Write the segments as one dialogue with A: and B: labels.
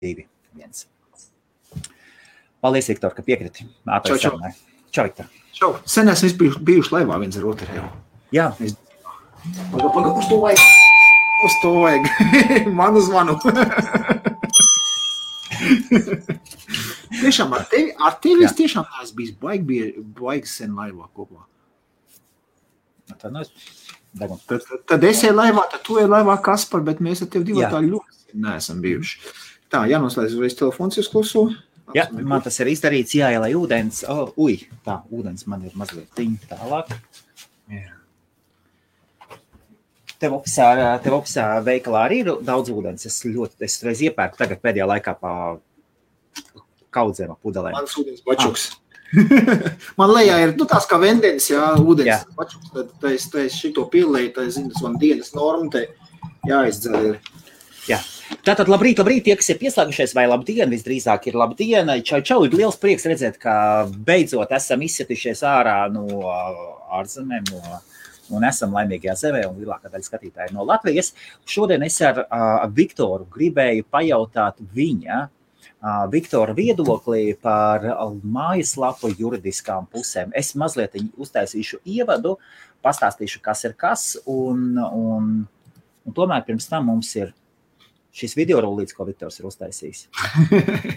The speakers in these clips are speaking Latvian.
A: 2, 1. Paldies, Viktor, ka piekriti.
B: Čau.
A: Čau, Viktor.
B: Čau. Sen esmu bijuši laivā viens ar otru jau.
A: Jā.
B: Paga, uz to vajag. Uz to vajag. Manu zvanu. Tiešām ar tevi es tiešām esmu bijis baigi sen laivā kopā. Tad es eju laivā, tad tu eju laivā, Kaspar, bet mēs ar tevi divi tā ļoti neesam bijuši. Tā, jānoslēdz uzreiz telefons, jūs kluso.
A: Jā, man tas ir izdarīts, jāielai ūdens. Tā, ūdens man ir mazliet tālāk.
B: Jā.
A: Tev opisā veikalā arī ir daudz ūdens. Es reiz iepērku tagad pēdējā laikā pa kaudzēm pudelēm.
B: Mans ūdens bačuks. Man lejā ir, tās kā vendenis, ūdens bačuks. Tad es šito pielēju, tad es zinu, tas man dienas norma, te jāizdzer ir.
A: Jā. Tātad labrīt, tie, kas ir pieslēgušies, vai labdien, visdrīzāk ir labdien. Čau, ir liels prieks redzēt, ka beidzot esam izsitušies ārā no ārzemēm, un esam laimīgajā zemē, un lielākā daļa skatītāji no Latvijas. Šodien es ar Viktoru gribēju pajautāt viņa Viktora viedokli par mājaslapu juridiskām pusēm. Es mazliet uztaisīšu ievadu, pastāstīšu, kas ir kas, un tomēr pirms tam mums ir šis video rullīts, ko Viktors ir uztaisījis.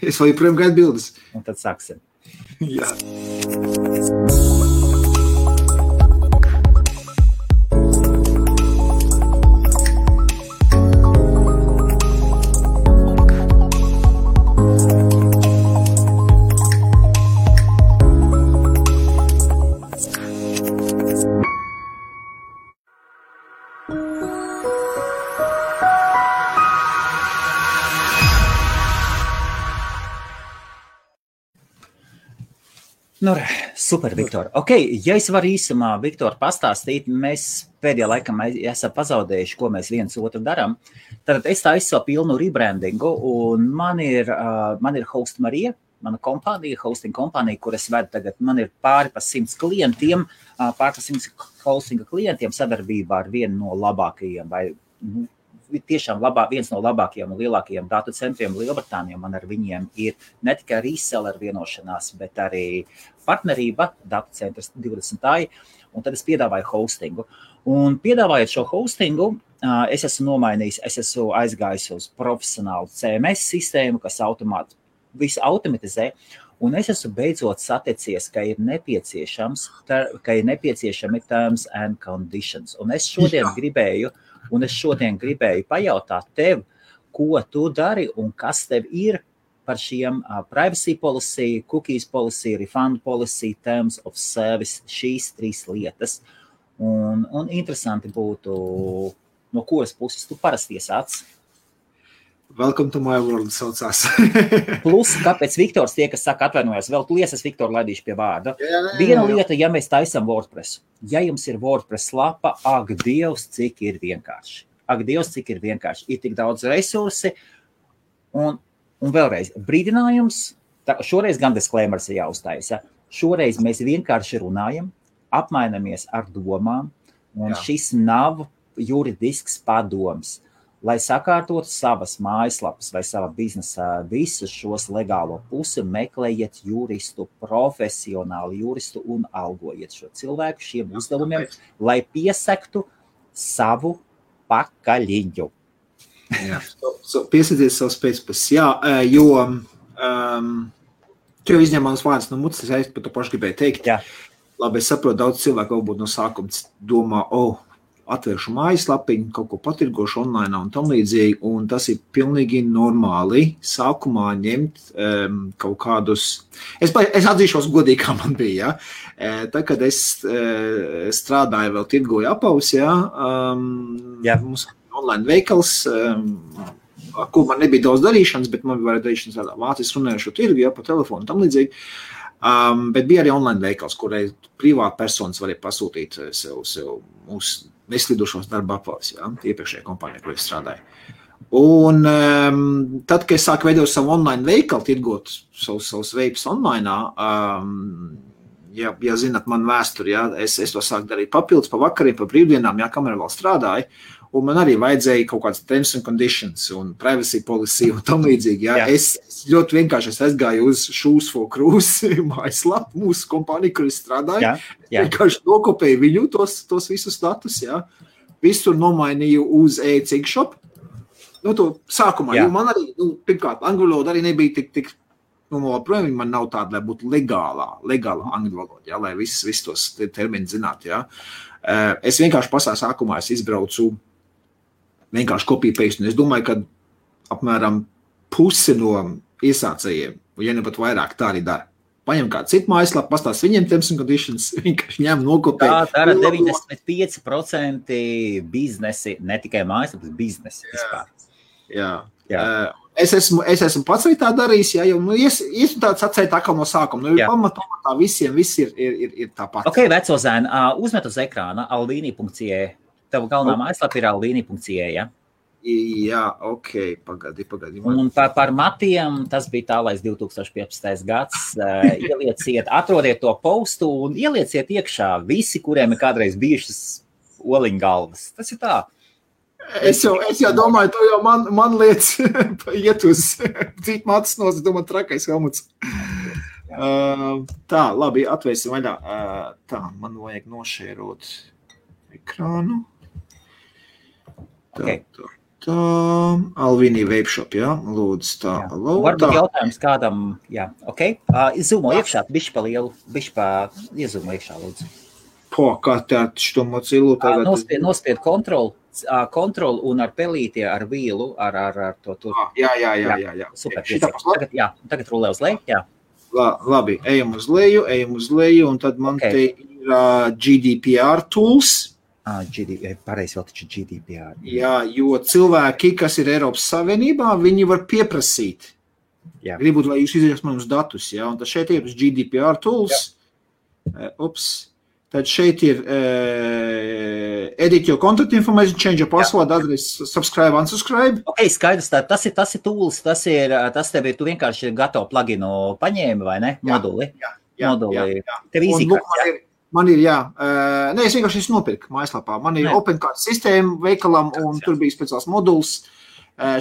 B: Es vēl joprojām gaidu bildes.
A: Un tad sāksim.
B: Jā.
A: Super, Viktor. Ja es varu īsumā, Viktor, pastāstīt, mēs pēdējā laikā esam pazaudējuši, ko mēs viens otru darām. Tad es taisu savu pilnu rebrandingu, un man ir Host Marija, mana kompānija, hosting kompānija, kur es vedu tagad. Man ir pāri pa 100 klientiem, hostinga klientiem sadarbībā ar vienu no labākajiem, vai tiešām viens no labākajiem un lielākajiem datu centriem Lielbritānijā. Man ar viņiem ir ne tikai reseller vienošanās, bet arī partnerība, datu centrs 20. Un tad es piedāvāju hostingu. Un piedāvājot šo hostingu, es esmu nomainījis, es esmu aizgājis uz profesionālu CMS sistēmu, kas visu automatizē. Un es esmu beidzot saticies, ka ir nepieciešami terms and conditions. Un es šodien gribēju pajautāt tev, ko tu dari un kas tev ir par šiem privacy policy, cookies policy, refund policy, terms of service, šīs 3 lietas. Un interesanti būtu, no kuras puses tu parasti iesāc.
B: Welcome to my world saucās.
A: Plus, kāpēc Viktors tie, kas saka atvainojās, vēl liesas Viktoru laidīšu pie vārda. Viena lieta, ja mēs taisam WordPress. Ja jums ir WordPress lapa, ak Dievs, cik ir vienkārši. Ir tik daudz resursi. Un vēlreiz, brīdinājums, šoreiz gan disclaimers ir jāuztaisa. Šoreiz mēs vienkārši runājam, apmainamies ar domām, un šis nav juridisks padoms. Lai sakārtotu savas mājaslapas vai sava biznesa visus šos legālo pusi, meklējiet juristu, profesionālu juristu un algojiet šo cilvēku šiem uzdevumiem, lai piesektu savu pakaļiņu.
B: Jā, piesadzies savus pēcpus. Jā, jo tu jau izņemams vārds no mutes, es par to pašu gribēju teikt.
A: Jā.
B: Labi, es saprotu, daudz cilvēku varbūt no sākuma domā, atvēršu mājaslapiņu, kaut ko patirgošu online un tam līdzīgi, un tas ir pilnīgi normāli sākumā ņemt kaut kādus... Es atzīšos godīgi, kā man bija, Tā, kad es strādāju vēl tirgoju apaus, mums online veikals, kur man nebija daudz darīšanas, bet man bija darīšanas tādā vācis runājušo tirgu, pa telefonu un tam līdzīgi. Bet bija arī online veikals, kurai privāti personas varēja pasūtīt sev mūsu neslidušos darba apvalus, iepriekšējā kompānijā, kur es strādāju. Un tad, kad es sāku veidot savu online veikalu, tirgot savus veipus online, ja zinat man vēsturi, es to sāku darīt papildus pa vakariem, pa brīvdienām, kamēr vēl strādāju, un man arī vajadzēja kaut kāds terms and conditions un privacy policy un tam līdzīgi. Ja? Es ļoti vienkārši aizgāju uz Shoes for Cruise mājaslapu, mūsu kompāniju, kur es strādāju. Vienkārši nokopēju viņu tos visus datus. Ja? Visu nomainīju uz e-cigshop. To sākumā, jo man arī, pirmkārt, angļu valoda arī nebija tik projām man nav tāda, lai būtu legālā angļu valoda, ja, lai visus tos termini zinātu. Ja. Es vienkārši pašā sākumā izbraucu vienkārši copy-paste, un es domāju, ka apmēram pusi no iesācējiem, ja ne pat vairāk, tā arī dara. Paņem kādu citu mājaslapu, pastāst viņiem terms and conditions, vienkārši ņem nokopē.
A: Tā dara 95% biznesi, ne tikai mājaslapas, biznesi vispār.
B: Jā. Es esmu pats arī tā darījis, ja, jo esmu tāds atcēt atkal no sākuma. Pamatā visiem viss ir tāpat.
A: Ok, veco zēni, uzmet uz ekrāna alvini.ie. Tava galvenā mājaslapa ir alvini.ie, ja?
B: Jā, ok, pagadi.
A: Un par matiem, tas bija tālais 2015. gads, ielieciet, atrodiet to postu un ielieciet iekšā visi, kuriem ir kādreiz bijušas oliņgalvas. Tas ir tā.
B: Es jau domāju, tu jau man lietas iet uz cīt matas nos, domāju, trakais helmuts. Tā, labi, atvērsim vaļā. Tā, man vajag nošērot ekrānu. Tā, Alvini Webshop, jā, lūdzu, tā.
A: Varbūt jautājums kādam, jā, ok. Izūmo iekšā, bišķi pa lielu, iezūmo iekšā, lūdzu.
B: Kā tā što mocilu tagad?
A: Nospied kontrol un ar pelīti, ar vīlu, ar to tur.
B: Jā.
A: Super, tagad rulē uz leju, jā.
B: Labi, ejam uz leju, un tad man te ir GDPR tools.
A: Pareizi vēl taču GDPR.
B: Jā, jo cilvēki, kas ir Eiropas Savienībā, viņi var pieprasīt. Gribūt, lai jūs izrakstat manus datus, jā, un tad šeit ir GDPR tools. Tad šeit ir edit your contact information, change your password, address, subscribe, unsubscribe.
A: Ok, skaidrs, tas ir tools, tas tev ir, tu vienkārši gatavu pluginu paņēmi, vai ne? Moduli.
B: Jā.
A: Tev īzīkārt,
B: Man ir, jā. Nē, es vienkārši nopirku mājaslapā. Man ir OpenCard sistēma veikalam, un tur bija speciāls moduls.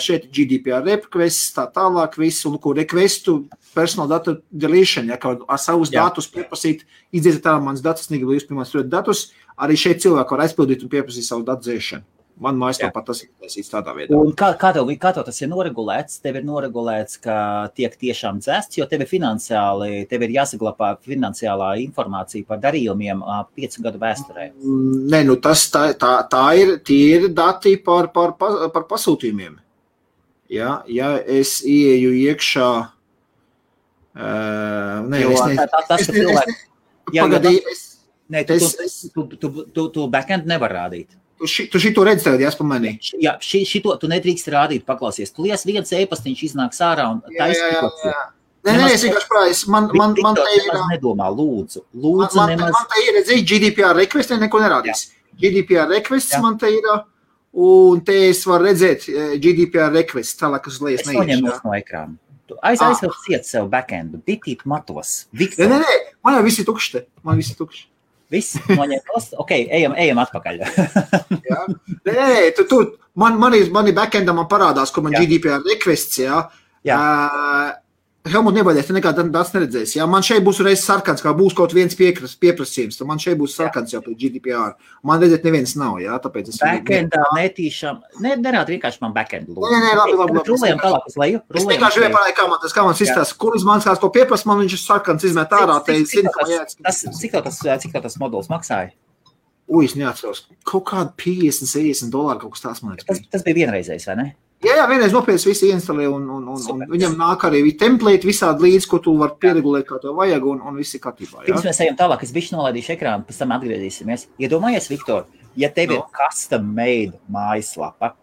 B: Šeit ir GDPR requests, tā tālāk viss, un ko requestu personal data deletion, ja, kā ar savus datus pieprasīt, izdziet tā mans datus, negribu jūs pirmās turēt datus, arī šeit cilvēki var aizpildīt un pieprasīt savu datu dzēšanu. Man mājaslapā tas ir taisīts tādā veidā.
A: Un kā tev tas ir noregulēts? Tev ir noregulēts, ka tiek tiešām dzēsts, jo tev ir jāsaglabā finansiālā informācija par darījumiem 5 gadu vēsturē.
B: Nē, tie ir dati par pasūtījumiem. Ja es ieeju iekšā...
A: Tu backend nevar rādīt.
B: Tu šito redzi tagad, jāspa manī?
A: Jā, šito tu nedrīkst rādīt, paklausies. Tu lies viens e-pastiņš iznāks ārā un taisnīkots.
B: Nē, es vienkārši prājas. Man te ir...
A: Nedomā, lūdzu.
B: Man te ir, redzīgi, GDPR request, neko nerādīs. GDPR requests man te ir, un te es varu redzēt GDPR request, tālāk uz lejas
A: neiešu. Es noņem no ekrāna. Aizvēl ciet sev backendu, bitīt matos.
B: Nē, man jau visi tukšti.
A: Viss, noņemtos, ok, ejam atpakaļ.
B: Nē, man ir backendam man parādās, ko man GDPR requests, Helmut, nebaidēs, te nekādā dats neredzēs. Man šeit būs reiz sarkans, kā būs kaut viens pieprasījums, tad man šeit būs sarkans jau pēc GDPR. Man redzēt neviens nav, tāpēc es...
A: Backendā netīšām, nerād vienkārši man backendu lūdzu.
B: Nē, labi.
A: Rulējam tālāk uz leju.
B: Es vienkārši vienkārši kā man izstāsta, kuras man kāds ko pieprasa, man viņš ir sarkans izmet ārā, te zinu, ka man jāatskatās.
A: Cik tas moduls maksāja?
B: Es neatceros. Kaut kādu $50 kaut kas tās man ir.
A: Tas bija vienreizējs, vai ne?
B: Jā, vienreiz nopietni visi ieinstalē un viņam nāk arī template visādi līdz, ko tu var pieregulēt, kā to vajag, un viss ir kārtībā.
A: Pirms mēs ejam tālāk, es bišķi nolaidīšu ekrānu, pēc tam atgriezīsimies. Iedomājies, Viktor, ja tev ir custom made mājaslapa,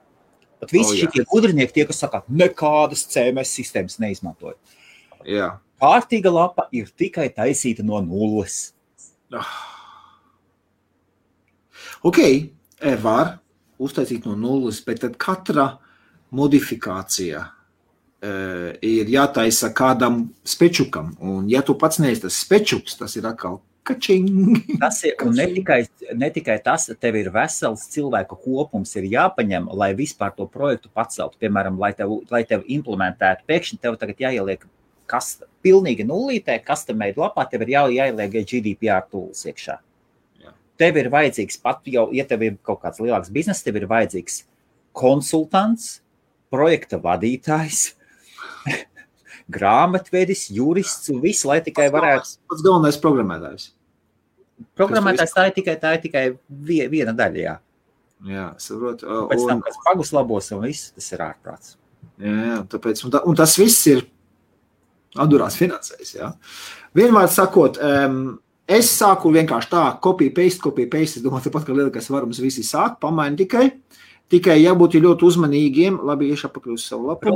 A: pat visi šitie gudrinieki, tie, kas saka, nekādas CMS sistēmas neizmantoja.
B: Jā.
A: Kārtīga lapa ir tikai taisīta no nulles.
B: Ok, var uztaisīt no nulles, bet tad katra modifikācija ir jātaisa kādam spečukam, un ja tu pats neesi tas spečuks, tas ir atkal Kačing.
A: Tas ir, un ne tikai tas, tev ir vesels cilvēku kopums ir jāpaņem, lai vispār to projektu paceltu. Piemēram, lai tev implementētu, pēkšņi tev tagad jāieliek pilnīgi nullītē, custom-made lapā, tev ir jāieliek GDPR tools iekšā. Jā. Tev ir vajadzīgs pat jau, ja tev ir kaut kāds lielāks bizness, tev ir vajadzīgs konsultants, projekta vadītājs, grāmatvedis, jurists un viss, lai tikai varētu...
B: Pats galvenais programmētājs.
A: Programmētājs tā ir tikai viena daļa, jā.
B: Jā, saprot.
A: Pēc tam, kas pagus labos un viss, tas ir ārprāts.
B: Jā, tāpēc, un tas viss ir atdurās finansēs, jā. Vienmēr sakot, es sāku vienkārši tā, copy-paste, es domāju, tāpat, ka lielākais varums visi sāk, pamaini tikai jābūt ļoti uzmanīgiem, labi, iešapakaļ uz savu lapu.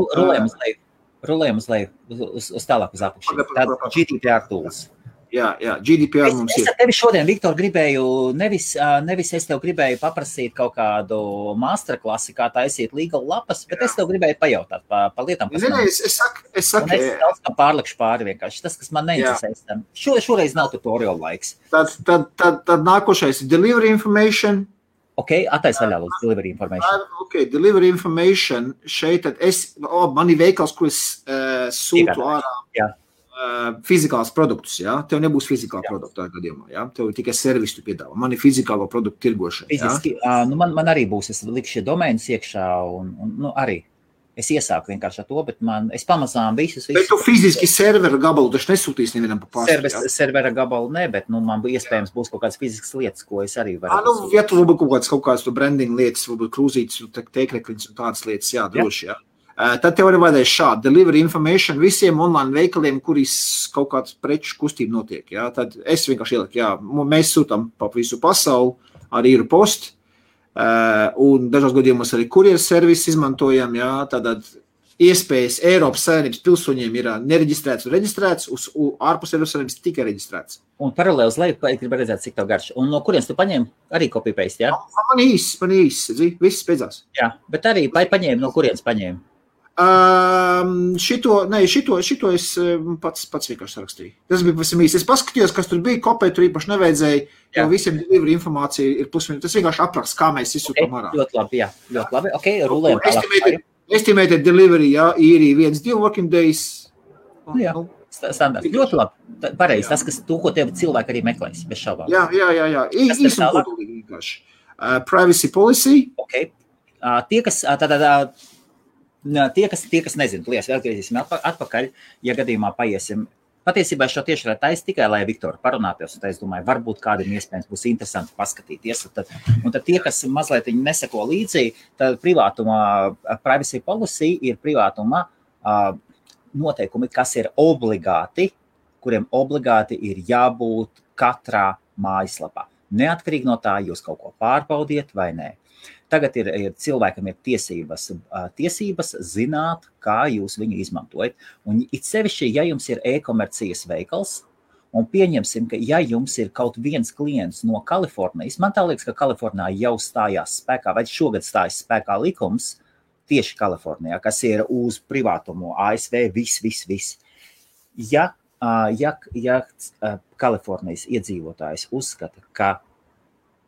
A: Rulējam uz leju, uz tālāk uz apakšu. Tāda GDPR tools.
B: Jā, GDPR mums ir.
A: Es tevi šodien, Viktor, gribēju, nevis es tev gribēju paprasīt kaut kādu masterklasi, kā taisīt legal lapas, bet es tev gribēju pajautāt pa lietām, kas man...
B: Es saku...
A: Un es daudz kā pārlikšu pāri vienkārši. Tas, kas man neinteresēs tam. Šoreiz nav tutorial laiks.
B: Tad nākošais ir delivery information.
A: Ok, attais vaļā lūdzu, delivery information.
B: Ok, delivery information, šeit tad man ir veikals, ko es sūtu ārā fizikāls produktus, jā? Tev nebūs fizikāla produkta gadījumā, jā? Tev tikai servisu piedāvā. Man ir fizikālo produktu tirgošana, jā?
A: Fiziski, man arī būs, es likšu domēnus iekšā un arī. Es iesaku vienkārši ar to, bet es pamazām visus...
B: Bet tu fiziski servera gabalu taču nesūtīsi nevienam pa
A: pastu, servera gabalu ne, bet man iespējams būs kaut kādas fiziskas lietas, ko es arī varu...
B: Ja tu varbūt kaut kādas branding lietas, varbūt krūzītes, teikrekliņas un tādas lietas, jā, droši, jā. Tad tev arī vajadzēs šādi delivery information visiem online veikaliem, kurīs kaut kāds preču kustība notiek, jā. Tad es vienkārši ieliku, jā, mēs sūtam pa visu pasauli ar īru postu, un dažos gadījumos arī kurjeru servisu izmantojam, jā, tātad iespējas Eiropas Savienības pilsoņiem ir nereģistrēts un reģistrēts, uz ārpus Eiropas Savienības tikai reģistrēts.
A: Un paralēli uz leju, gribu redzēt, cik tev garš. Un no kurienes tu paņēmi arī copy-paste, jā?
B: Man īsi, viss beidzās.
A: Jā, bet arī paņēmi, no kurienes paņēmi?
B: Šito es pats vienkārši rakstīju. Tas bija pavisam īsi. Es paskatījos, kas tur bija, kopēt tur īpaši nevajadzēja, jo visiem delivery informācija ir plus-minus. Tas vienkārši apraksts, kā mēs izsūtām ārā.
A: Ļoti labi, jā. Ļoti labi. Ok, rulējam tālāk.
B: Estimated delivery, jā, īri 1-2 working days.
A: Jā, standarts. Ļoti labi. Pareizi, tas, kas to, ko tev cilvēki arī meklēs, bez šaubām.
B: Jā. Īsi un kodolīgi vienkārši. Privacy policy.
A: Ok. Tie, kas nezinu, lies, vēl griezīsim atpakaļ, ja gadījumā paiesim. Patiesībā šo tieši taisa tikai, lai Viktoru parunātos, un es domāju, varbūt kādiem iespējams būs interesanti paskatīties. Un tad tie, kas mazliet neseko līdzi, tad privacy policy ir privātuma noteikumi, kas ir obligāti, kuriem obligāti ir jābūt katrā mājaslapā. Neatkarīgi no tā, jūs kaut ko pārbaudiet vai nē. Tagad cilvēkam ir tiesības zināt, kā jūs viņu izmantojat. Un it sevišķi, ja jums ir e-komercijas veikals, un pieņemsim, ka ja jums ir kaut viens klients no Kalifornijas, man tā liekas, ka Kalifornijā jau stājās spēkā, vai šogad stājas spēkā likums tieši Kalifornijā, kas ir uz privātumu, ASV, viss. Ja Kalifornijas iedzīvotājs uzskata, ka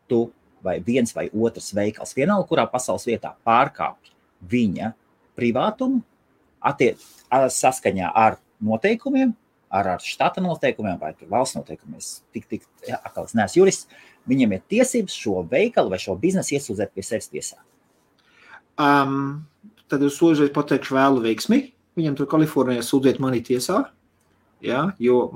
A: tu vai viens vai otrs veikals vienalga, kurā pasaules vietā pārkāpj viņa privātumu saskaņā ar noteikumiem, ar štata noteikumiem vai valsts noteikumiem. Es neesmu jurists, viņiem ir tiesības šo veikalu vai šo biznesu iesūdzēt pie sevis tiesā.
B: Tad es lūdzu pateikšu vēlu veiksmi. Viņam tur Kalifornijā sūdzēt mani tiesā, jā, jo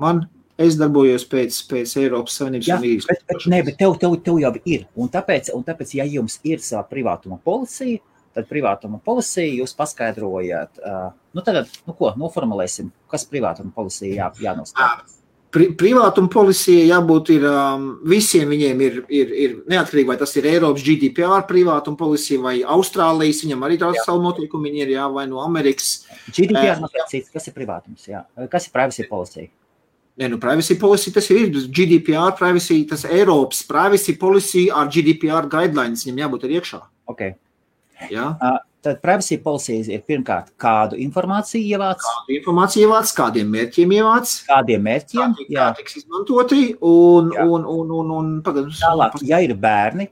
B: es darbojos pēc Eiropas Savienības un īres.
A: Bet tev jau ir. Un tāpēc, ja jums ir savā privātuma policija, tad privātuma policija jūs paskaidrojat. Noformulēsim, kas privātuma policija jānostāda.
B: Privātuma policija jābūt ir, visiem viņiem ir neatkarīgi, vai tas ir Eiropas GDPR privātuma policija vai Austrālijas, viņam arī tās savu noteikumu, viņi ir, jā, vai no Amerikas.
A: GDPR cits, kas ir privātums, jā? Kas ir privacy policija?
B: Privacy policy, tas ir GDPR privacy, tas Eiropas privacy policy ar GDPR guidelines, viņam jābūt arī iekšā.
A: Ok.
B: Jā?
A: Tad privacy policies ir pirmkārt, kādu informāciju ievāc.
B: Kādu informāciju ievāc, kādiem mērķiem ievāc.
A: Kādiem mērķiem.
B: Kā tiks izmantoti un pagad.
A: Tālāk, ja ir bērni,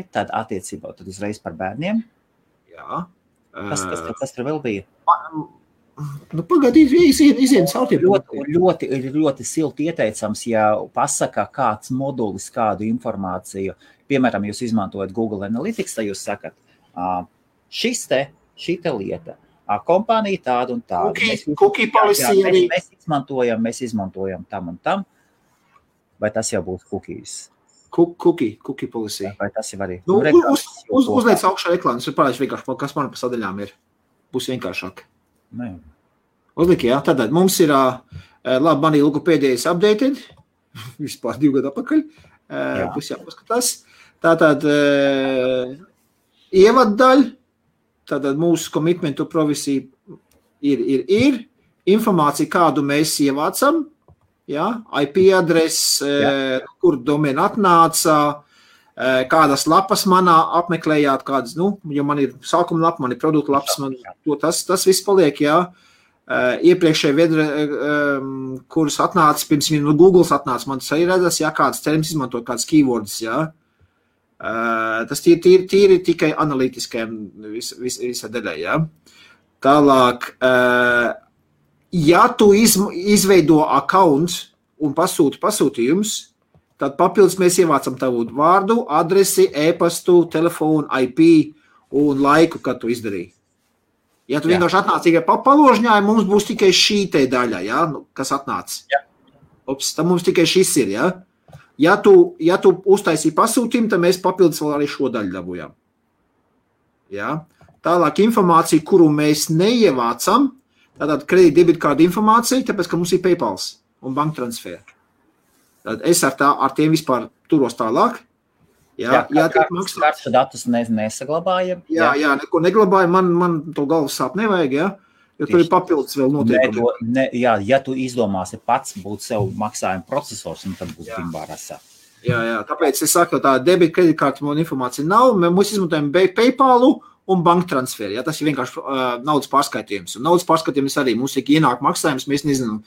A: tad attiecībā tad uzreiz par bērniem.
B: Jā.
A: Kas tur vēl bija?
B: Nu, pagaidīt, iziet caurtiem.
A: Ļoti silti ieteicams, ja pasaka kāds modulis, kādu informāciju. Piemēram, jūs izmantojat Google Analytics, tad jūs sakat, šita lieta, kompānija tāda un tāda.
B: Cookie policy arī.
A: Mēs izmantojam tam un tam. Vai tas jau būs cookies?
B: Cookie policy.
A: Vai tas jau arī?
B: Uzliec augšā reklāmas, ir pārējuši vienkārši, kas man pa sadaļām ir. Būs vienkāršāk. Uzliek, jā. Tātad mums ir, labi, manī logopēdijas updated, vispār 2 gadu atpakaļ. Būs jāpaskatās. Tātad ievaddaļa, tātad mūsu commitment to privacy ir informācija, kādu mēs ievācam, jā, IP adrese, kur domēna atnāca, kādas lapas manā apmeklējāt, kādas, jo man ir sākuma lapa, man ir produktu lapas, tas viss paliek, jā. Iepriekšēji vedra, kuras atnāca, pirms no Googles atnāca, man tas arī redzas, jā, kādas terms izmantot, kādas keywords, jā. Tas tīri tikai analītiskajam visā daļai, jā. Tālāk, ja tu izveido account un pasūti pasūtījums, tad papildus mēs ievācam tavu vārdu, adresi, e-pastu, telefonu, IP un laiku, kad tu izdarīji. Ja tu vienkārši atnāc tikai paložņāji, mums būs tikai šī te daļa, jā, kas atnāc. Ops, tad mums tikai šis ir, jā. Ja tu uztaisīji pasūtījumu, tad mēs papildus vēl arī šo daļu dabūjām. Jā. Tālāk informācija, kuru mēs neievācam, tātad kredīt debitkārdu informācija, tāpēc, ka mums ir PayPals un banktransfer. Tad es ar tiem vispār turos tālāk. Jā,
A: kartu datus nesaglabājam.
B: Jā, neko neglabājam, man to galvas sāp nevajag, jā. Jo tur ir papildus vēl noteikumi.
A: Ja tu izdomāsi pats būt sev maksājuma procesors, tad būs bimbārasā.
B: Jā, tāpēc es saku, tā debit kreditkārta man informācija nav, mēs izmantojam PayPalu un banktransferi. Ja, tas ir vienkārši naudas pārskaitījums. Un naudas pārskaitījums arī mums ir ienāk maksājums, mēs nezinām,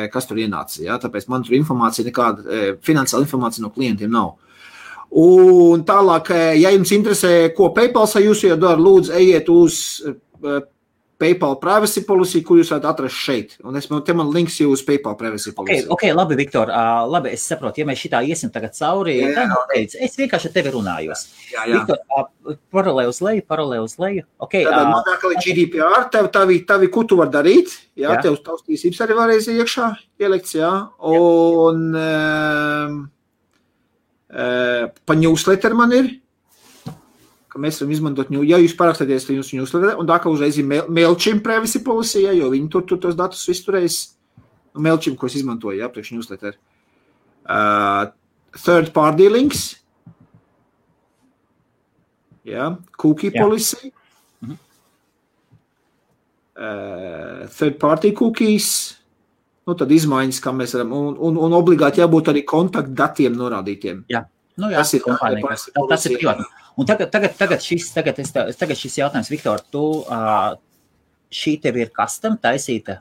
B: kas tur ienāca. Ja, tāpēc man tur informācija, nekāda finansiāla informācija no klientiem nav. Un tālāk, ja jums interesē, ko PayPals jūs jau dara, lūdzu, ejiet uz PayPal privacy policy, kur jūs varat atrast šeit. Un te man links jūs uz PayPal privacy policy.
A: Ok, labi, Viktor, labi, es saprotu, ja mēs šitā iesim tagad cauri, es vienkārši ar tevi runājos.
B: Jā.
A: Viktor, paralē uz leju. Okay,
B: tad man atkal ir GDPR, tavi ko tu var darīt, jā. Tev tavs tiesības arī varēs iekšā ielikts, jā. Un pa newsletter man ir, ka mēs varam izmantot, ja jūs parakstāties jūsu newsletter, un tā kā uzreiz ir MailChimp privacy policy, jo viņi tur tos datus visu turēs, MailChimp, ko es izmantoju, jā, priekš newsletter. Third party links, jā, cookie policy, third party cookies, tad izmaiņas, kā mēs varam, un obligāti jābūt arī kontaktdatiem norādītiem.
A: Jā, tas ir kompānija, tas ir privāti. Un tagad šis jautājums, Viktor, tu šī tev ir custom taisīta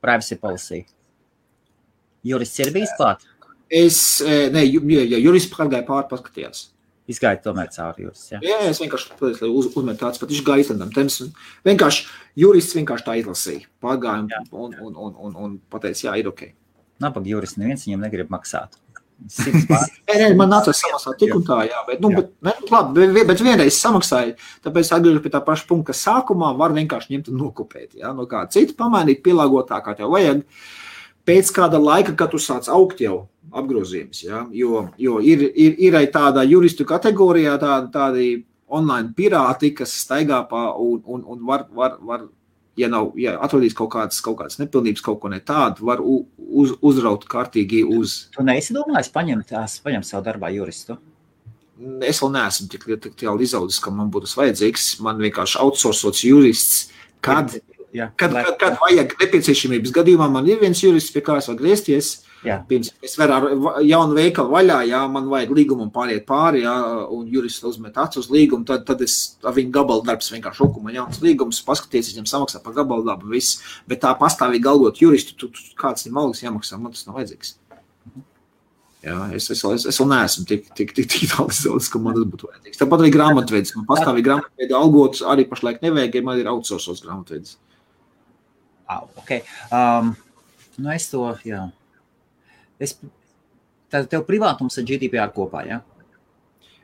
A: privacy policy? Jurists ir bijis klāt?
B: Jurists pārgāja paskatījās.
A: Izgāja tomēr cauri jurists, jā?
B: Jā, es vienkārši uzmetu tāds, pat viņš gāja izlendam. Vienkārši jurists vienkārši tā izlasīja. Pārgāja un pateica, jā, ir ok.
A: Nabaga jurists neviens viņam negrib maksāt.
B: Man nācās samaksāt tik un tā, jā, bet vienreiz samaksāju, tāpēc atgriežu pie tā paša punkta, ka sākumā var vienkārši ņemt un nokopēt, jā, no kā citu pamainīt, pielāgot tā, kā tev vajag, pēc kāda laika, kad tu sāc augt jau apgrozījums, jā, jo ir tāda juristu kategorijā tādi online pirāti, kas staigā pa un var ja atrodīs kaut kādas nepilnības, kaut ko ne tādu, var uzraut kārtīgi uz...
A: Tu neesi domājis paņemt savu darbā juristu?
B: Es vēl neesmu tik izaudzis, ka man būtu vajadzīgs. Man vienkārši outsourcots jurists, kad vajag nepieciešamības gadījumā, man ir viens jurists, pie kā es var griezties, Pirms es varu ar jaunu veikalu vaļā, jā, man vajag līgumu pāriet pāri, jā, un jurists uzmet acu uz līgumu, tad es ar viņu gabalu darbs vienkārši šoku, man jauns līgums, paskaties, viņam samaksā par gabalu darbu, viss, bet tā pastāvīgi algot juristu, kāds viņam algas jāmaksā, man tas nav vajadzīgs. Jā, es vēl neesmu tik tālis, ka man tas būtu vajadzīgs. Tāpat arī grāmatvedis, man pastāvīgi grāmatveidi algots arī pašlaik nevajag, ja man ir outsourcos grāmatvedis.
A: Okay. Nu es to, jā. Tad tev privātums ar GDPR kopā, jā?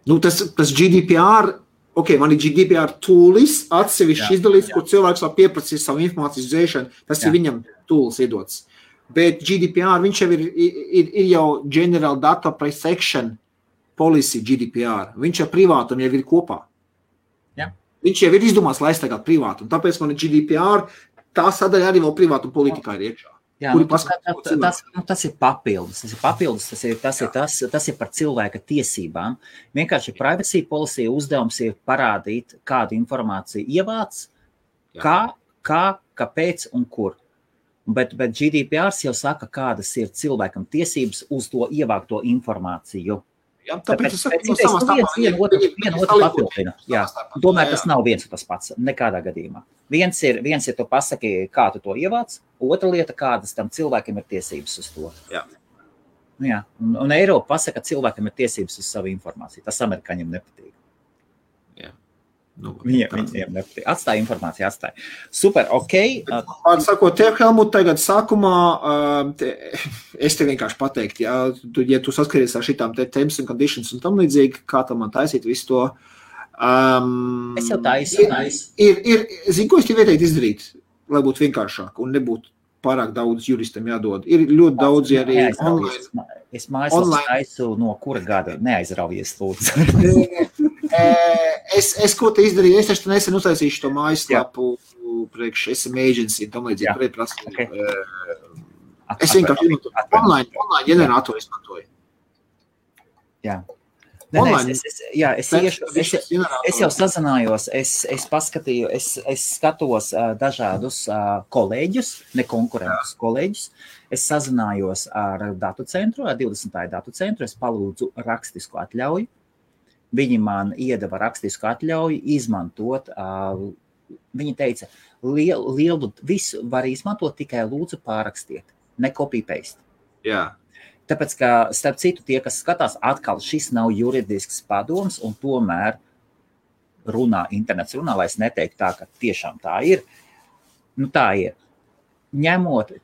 B: Nu, tas GDPR, man ir GDPR toolis, atsevišķi izdalīts, kur cilvēks var pieprasīt savu informācijas dzēšanu, tas ir viņam tools iedots. Bet GDPR, viņš jau ir jau General Data Protection Policy GDPR, viņš ar privātumu jau ir kopā.
A: Jā.
B: Viņš jau ir izdomās, lai aizstāvētu privātumu, tāpēc man ir GDPR, tā sadaļa arī vēl privātuma politikā ir iekšā.
A: Jā, tas ir papildus. Tas ir par cilvēka tiesībām. Vienkārši privacy policy uzdevums ir parādīt, kādu informāciju ievāc, kāpēc un kur. Bet GDPR jau saka, kādas ir cilvēkam tiesības uz to ievākto informāciju.
B: Jā, tāpēc
A: vienu otru papildina. Jā, tomēr tas nav viens un tas pats, nekādā gadījumā. Viens ir tu pasaki, kā tu to ievāc, otra lieta, kādas tam cilvēkiem ir tiesības uz to.
B: Jā.
A: Jā. Un Eiropa pasaka, ka cilvēkiem ir tiesības uz savu informāciju. Tas amerikāņiem nepatīk.
B: Jā. Nu,
A: viņiem nepatīk. Atstāja informāciju, atstāja. Super, ok.
B: Sakot, tev, Helmut, tagad sākumā, es te vienkārši pateiktu, ja tu saskaries ar šitām terms and conditions un tam līdzīgi, kā tam man taisīt visu to,
A: es jau taisu.
B: Zinu, ko es tev ieteiktu izdarīt, lai būtu vienkāršāk un nebūtu pārāk daudz juristam jādod. Ir ļoti daudz arī online.
A: Es mājaslapas taisu no kura gada neaizraujies, lūdzu.
B: Es ko te izdarīju, es taču nesen uztaisīšu to mājaslapu priekš SM Agency un tam līdzīgi pretprasīju. Okay. Es vienkārši online ģeneratoru izmantoju.
A: Jā. Es jau sazinājos, es paskatīju, es skatos dažādus kolēģus, ne konkurentus kolēģus. Es sazinājos ar datu centru, ar 20. datu centru, es palūdzu rakstisku atļauju. Viņi man iedeva rakstisku atļauju izmantot. Viņi teica, lielu visu var izmantot, tikai lūdzu pārrakstiet, ne copy-paste.
B: Jā.
A: Tāpēc, ka, starp citu, tie, kas skatās, atkal šis nav juridisks padoms, un tomēr internets runā, lai es neteiktu tā, ka tiešām tā ir. Nu, tā ir. Ņemot,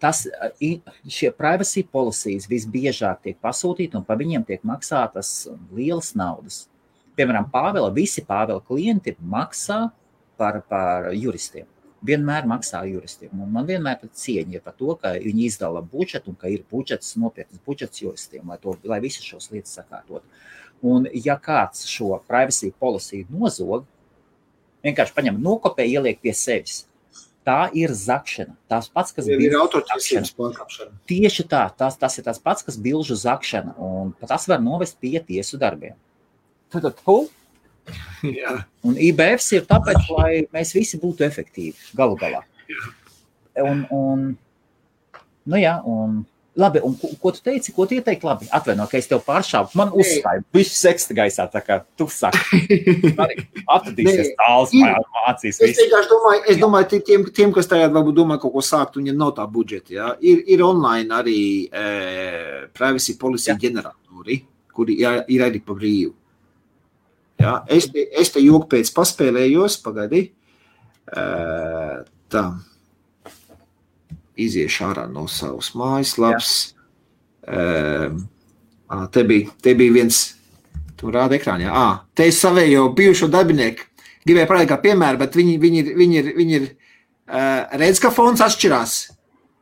A: šie privacy policies visbiežāk tiek pasūtīti, un pa viņiem tiek maksātas lielas naudas. Piemēram, visi Pāvela klienti maksā par juristiem. Vienmēr maksā juristiem. Un man vienmēr cieņa ir par to, ka viņi izdala budžetu un ka ir nopietnas budžets juristiem, lai visas šos lietas sakārtot. Un ja kāds šo privacy policy nozog, vienkārši paņem nokopē, ieliek pie sevis. Tā ir zakšana. Tās pats, kas
B: ir autortiesības pārkāpšana.
A: Tieši tā. Tas ir tas pats, kas bilžu zakšana. Un tas var novest pie tiesu darbiem.
B: Jā.
A: Un IBFs ir tāpēc, lai mēs visi būtu efektīvi galu galā. Labi, un ko tu teici, ko tu ieteikti? Labi, atvaino, ka es tev pāršāvu. Man uzstāju, visu seksta gaisā, tā kā tu saki. Atradīsies tāls, mācīs visu.
B: Es domāju, tiem, kas tagad varbūt domā kaut ko sākt, viņiem nav tā budžeta. Ja? Ir online arī privacy policy ģeneratori, kuri ir arī pa brīvu. Jā, es te joku pēc paspēlējos, pagaidi. Tā. Iziešu ārā no savas mājaslaps. Te bija viens, tu rāda ekrānā. Te es savējo bijušo darbinieku. Gribēju parādīt kā piemēru, bet viņi ir redz, ka fons atšķirās.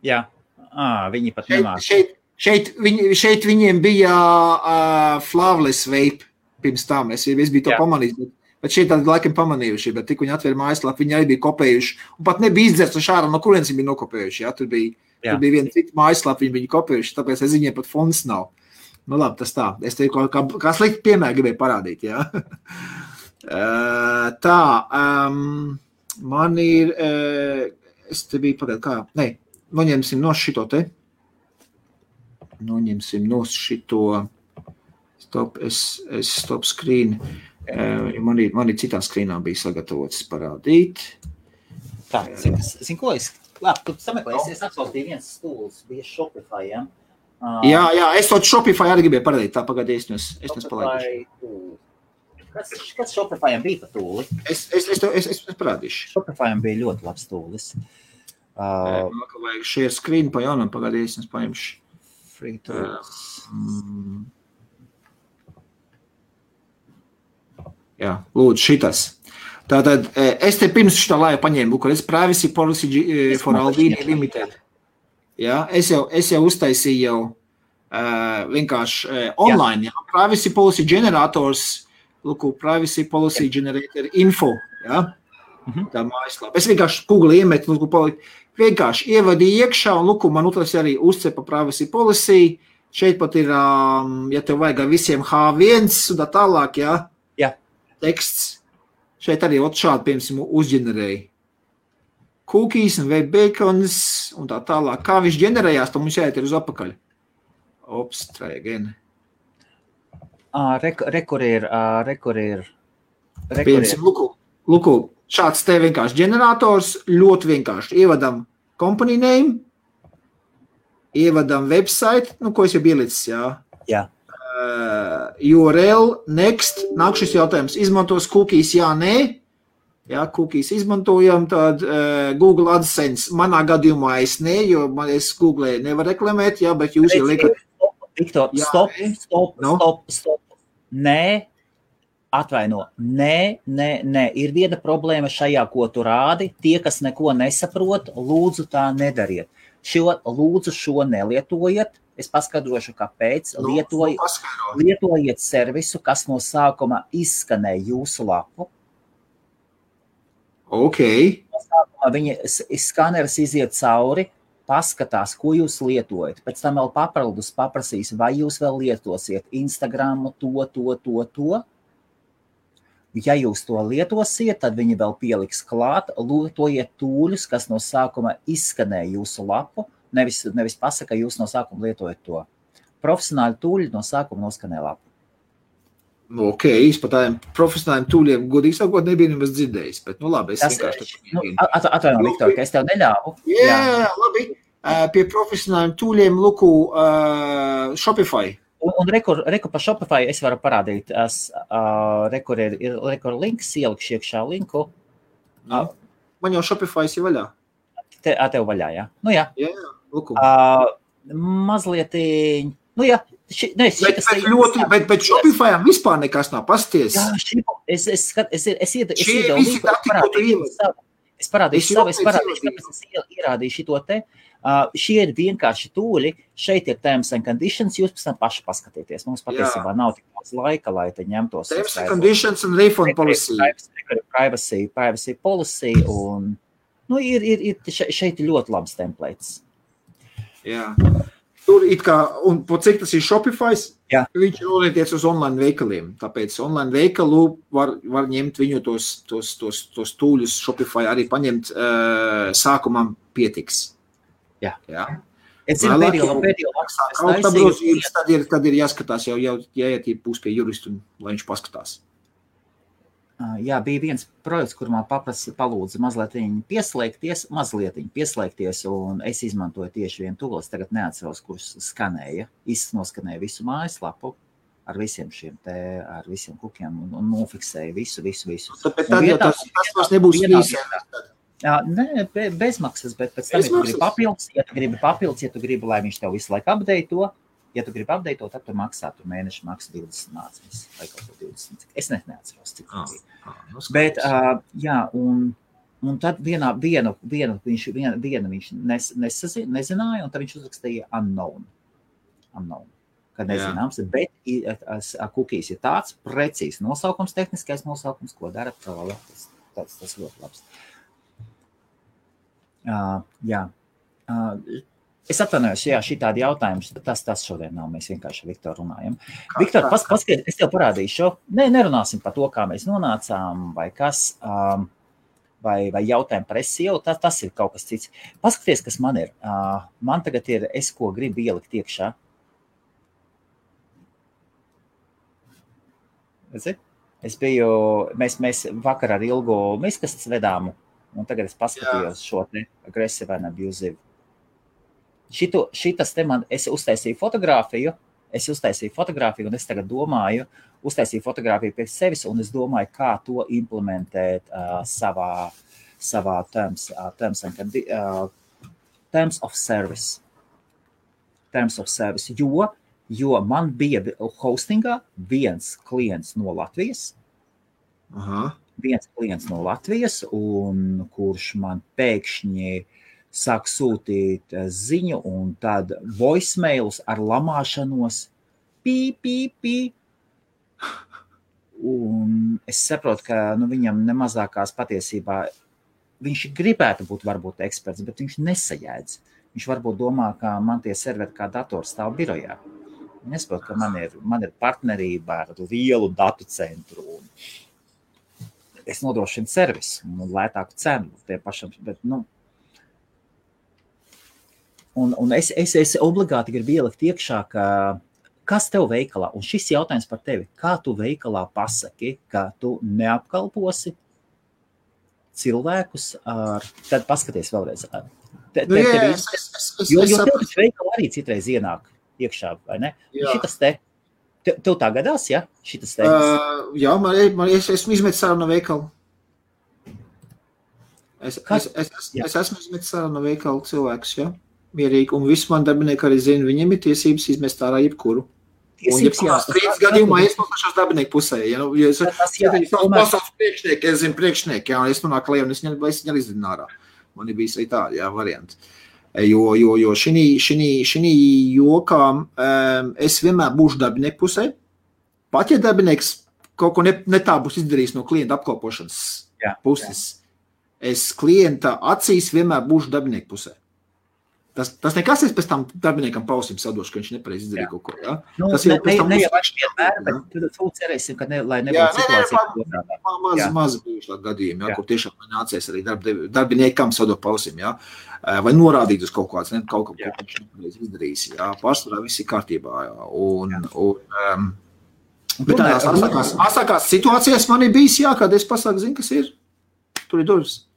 A: Jā, viņi pat nemāk.
B: Šeit viņiem bija Flaveless Vape. Pirms tam es biju to pamanījis, bet šeit tādi laikam pamanījuši, bet tik viņi atvēra mājaslapu, viņi arī bija kopējuši, un pat nebija izdzerts no šāra, no kurienes viņi bija nokopējuši, ja? Tur bija viena cita mājaslapa, viņi kopējuši, tāpēc es viņiem pat fonds nav. Nu labi, tas tā, es te kā slikti piemēru gribēju parādīt, ja? Man ir, es te biju pagād, noņemsim no šito te. noņemsim no šito stop screen. Man ir citā skrīnā bija sagatavots parādīt.
A: Tā, zin ko es? Labi, tu sameklēsi, es atsautīju viens stūls, bija Shopify, ja?
B: Jā, es to Shopify arī gribēju parādīt, tā pagādījis, es nepalaidīšu.
A: Kas Shopifyam bija pa tūli?
B: Es parādīšu.
A: Shopifyam bija ļoti labs tūlis.
B: Vajag share screen pa jaunam pagādījis, es paņemšu.
A: Free tools.
B: Jā, lūdzu, šitas. Tātad, es te pirms šitā laiva paņēmu, kur es Privacy Policy for Albania Limited. Jā, es jau uztaisīju jau vienkārši online, jā. Privacy Policy Generators, lūku, Privacy Policy Generator Info, jā. Tā mājaslapa. Es vienkārši Google iemetu, lūku, vienkārši ievadīju iekšā, un lūku, man utras arī uzcepa Privacy Policy. Šeit pat ir, ja tev vajag visiem H1 un tā tālāk, jā. Teksts. Šeit arī šādi, piemēram, uzģenerēja cookies un web beacons un tā tālāk. Kā viņš ģenerējās, to mums jāiet ir uz apakaļ. Ops, try again.
A: Rekur ir.
B: Piemēram, luku, šāds te vienkārši ģenerators, ļoti vienkārši. Ievadam company name, ievadam website, ko es jau ielicis, jā.
A: Jā.
B: URL, next, nāk šis jautājums, izmantos cookies, jā, nē, jā, cookies izmantojam, tad Google AdSense, manā gadījumā es nē, jo es Google nevar reklamēt, jā, bet jūs jau liekat.
A: Viktor, stop, nē, atvaino, nē, ir viena problēma šajā, ko tu rādi, tie, kas neko nesaprot, lūdzu tā nedariet. Lūdzu šo nelietojiet. Es paskaidrošu, kāpēc. Lietojiet servisu, kas no sākuma izskanē jūsu lapu.
B: Ok.
A: No sākuma viņa skaneris iziet cauri, paskatās, ko jūs lietojat. Pēc tam vēl papildus paprasīs, vai jūs vēl lietosiet Instagramu, to. Ja jūs to lietosiet, tad viņi vēl pieliks klāt, lietojiet tūļus, kas no sākuma izskanē jūsu lapu. Nevis pasaka, jūs no sākuma lietojat to. Profesionāli tūļi no sākuma noskanē lapu.
B: Ok, es par tādiem profesionāliem tūļiem godīgi sakot nebija nemaz dzirdējis, bet labi, es vienkārši...
A: Atvaino, Viktor, ka es tev neļāvu.
B: Jā, labi. Pie profesionāliem tūļiem, luku, Shopify.
A: Un rekur pa Shopify es varu parādīt. Rekur ir links, ielikšu iekšā linku.
B: Man jau Shopify ir vaļā.
A: Tev vaļā, jā? Nu jā.
B: Jā, luku.
A: Mazliet, nu jā.
B: Bet Shopifyam vispār nekas nav pasties.
A: Jā, es parādīšu savu, kāpēc es ierādīju šito te. Šie ir vienkārši tūļi, šeit ir terms and conditions, jūs pēc tam paši paskatieties. Mums patiesībā nav tik daudz laika, lai te ņemtos.
B: Terms and conditions un refund policy.
A: Privacy policy un, šeit ir ļoti labs templates.
B: Jā. Tur it kā, un po cik tas ir Shopify's, viņš ir orientēts uz online veikaliem. Tāpēc online veikalu var ņemt viņu tos tūļus Shopify arī paņemt sākumam pietiks.
A: Jā. Es zinu, pēdējo
B: maksā tad ir jāskatās jau jāiet būs pie juristu, lai viņš paskatās.
A: Jā, bija viens projekts, kur man palūdza mazliet pieslēgties, un es izmantoju tieši vienu tūli. Es tagad neatceros, kurš skanēja, noskanēja visu mājaslapu ar visiem šiem te, ar visiem kukiem un nofiksēja visu.
B: Tāpēc tad jau tas vairs nebūs īsēm.
A: Nē, bezmaksas, bet pēc tam, ja tu gribi, lai viņš tev visu laiku update'o, ja tu gribi update'ot, tad tu maksā, tu mēneši maksa 20 nāciņas, vai kaut ko 20. Es neatceros, cik tas bija. Bet, jā, un tad vienu viņš nezināja, un tad viņš uzrakstīja unknown, kad nezināms, bet cookies ir tāds precīzs nosaukums, tehniskais nosaukums, ko dara tas ļoti labs. Jā. Es atvainojos, šitādi jautājums, tas šodien nav, mēs vienkārši ar Viktoru runājam. Viktor, paskaties, es tev parādīšu, nerunāsim par to, kā mēs nonācām, vai kas, vai jautājumu par SEO, tas ir kaut kas cits. Paskaties, kas man ir. Man tagad ir, ko gribu ielikt iekšā, Es biju, mēs vakar ar Ilgu miskastes vedām, un tagad es paskatījos šo te aggressive and abusive. Šitas te man, es uztaisīju fotogrāfiju, un es tagad domāju, uztaisīju fotogrāfiju pie sevis, un es domāju, kā to implementēt savā terms of service. Terms of service, jo man bija hostingā viens klients no Latvijas, un kurš man pēkšņi sāk sūtīt ziņu, un tad voicemailus ar lamāšanos, pī. Un es saprotu, ka viņam nemazākās patiesībā, viņš gribētu būt varbūt eksperts, bet viņš nesajēdz. Viņš varbūt domā, ka man tie serveri kā dators stāv birojā. Nesaprotu, ka man ir partnerība ar lielu datu centru, un es nodrošinu servisu un lētāku cenu tie pašam, bet, un es obligāti gribu ielikt iekšā, ka kas tev veikalā, un šis jautājums par tevi, kā tu veikalā pasaki, ka tu neapkalposi cilvēkus tad paskaties vēlreiz. Jo tev veikala arī citreiz ienāk iekšā, vai ne? Šitas te, tev tā gadās, ja? Šitas te?
B: Jā, es esmu izmetis ārā no veikala. Es esmu izmetis ārā no veikala cilvēkus, ja? Mierīgi, un visi man darbinieki arī zina, viņiem ir tiesības izmest ārā jebkuru. Un jebkurā strīdas gadījumā es pašās darbinieku pusē, ja? Es zinu priekšnieki, ja? Es nonāku lejā un es viņu izdinu ārā. Man ir bijis arī tādi, jā, varianti. Jo šī jokā es vienmēr būšu darbinieku pusē. Pat ja darbinieks kaut ko ne tā būs izdarījis no klienta apkalpošanas puses, es klienta acīs vienmēr būšu darbinieku pusē. Tas nekas es pēc tam darbiniekam pausim sadošu, ka viņš nepareiz izdarīja kaut ko, jā? Tas jau pēc tam
A: vienmēr, bet tu cerēsim, ka lai nebūtu situācija.
B: Maz bijuši tā gadījumi, kur tiešām nācies arī darbiniekam sadot pausim, jā? Vai norādīt uz kaut kāds, kaut ko viņš nepareiz izdarījis, jā? Pārsvarā viss ir kārtībā, jā? Bet tādās asākās situācijās man ir bijis, jā, kad es pasaku, zinu, kas ir, tur ir durvis.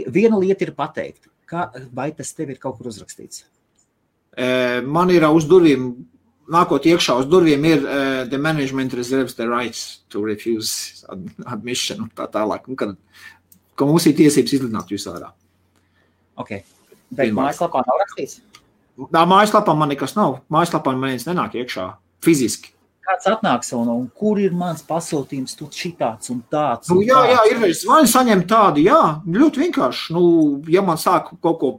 A: Viena lieta ir pateikt. Vai tas tev ir kaut kur uzrakstīts?
B: Man ir uz durvīm, nākot iekšā uz durvīm ir the management reserves the rights to refuse admission un tā tālāk. Ka mums ir tiesības izlidināt jūs ārā.
A: Ok. Bet mājaslapā nav rakstīts?
B: Mājaslapā man nekas nav. Mājaslapā man viens nenāk iekšā fiziski.
A: Kāds atnāks un kur ir mans pasūtījums, tu šitāds un tāds?
B: Jā, ir zvani saņem tādu, jā, ļoti vienkārši. Ja man sāk kaut ko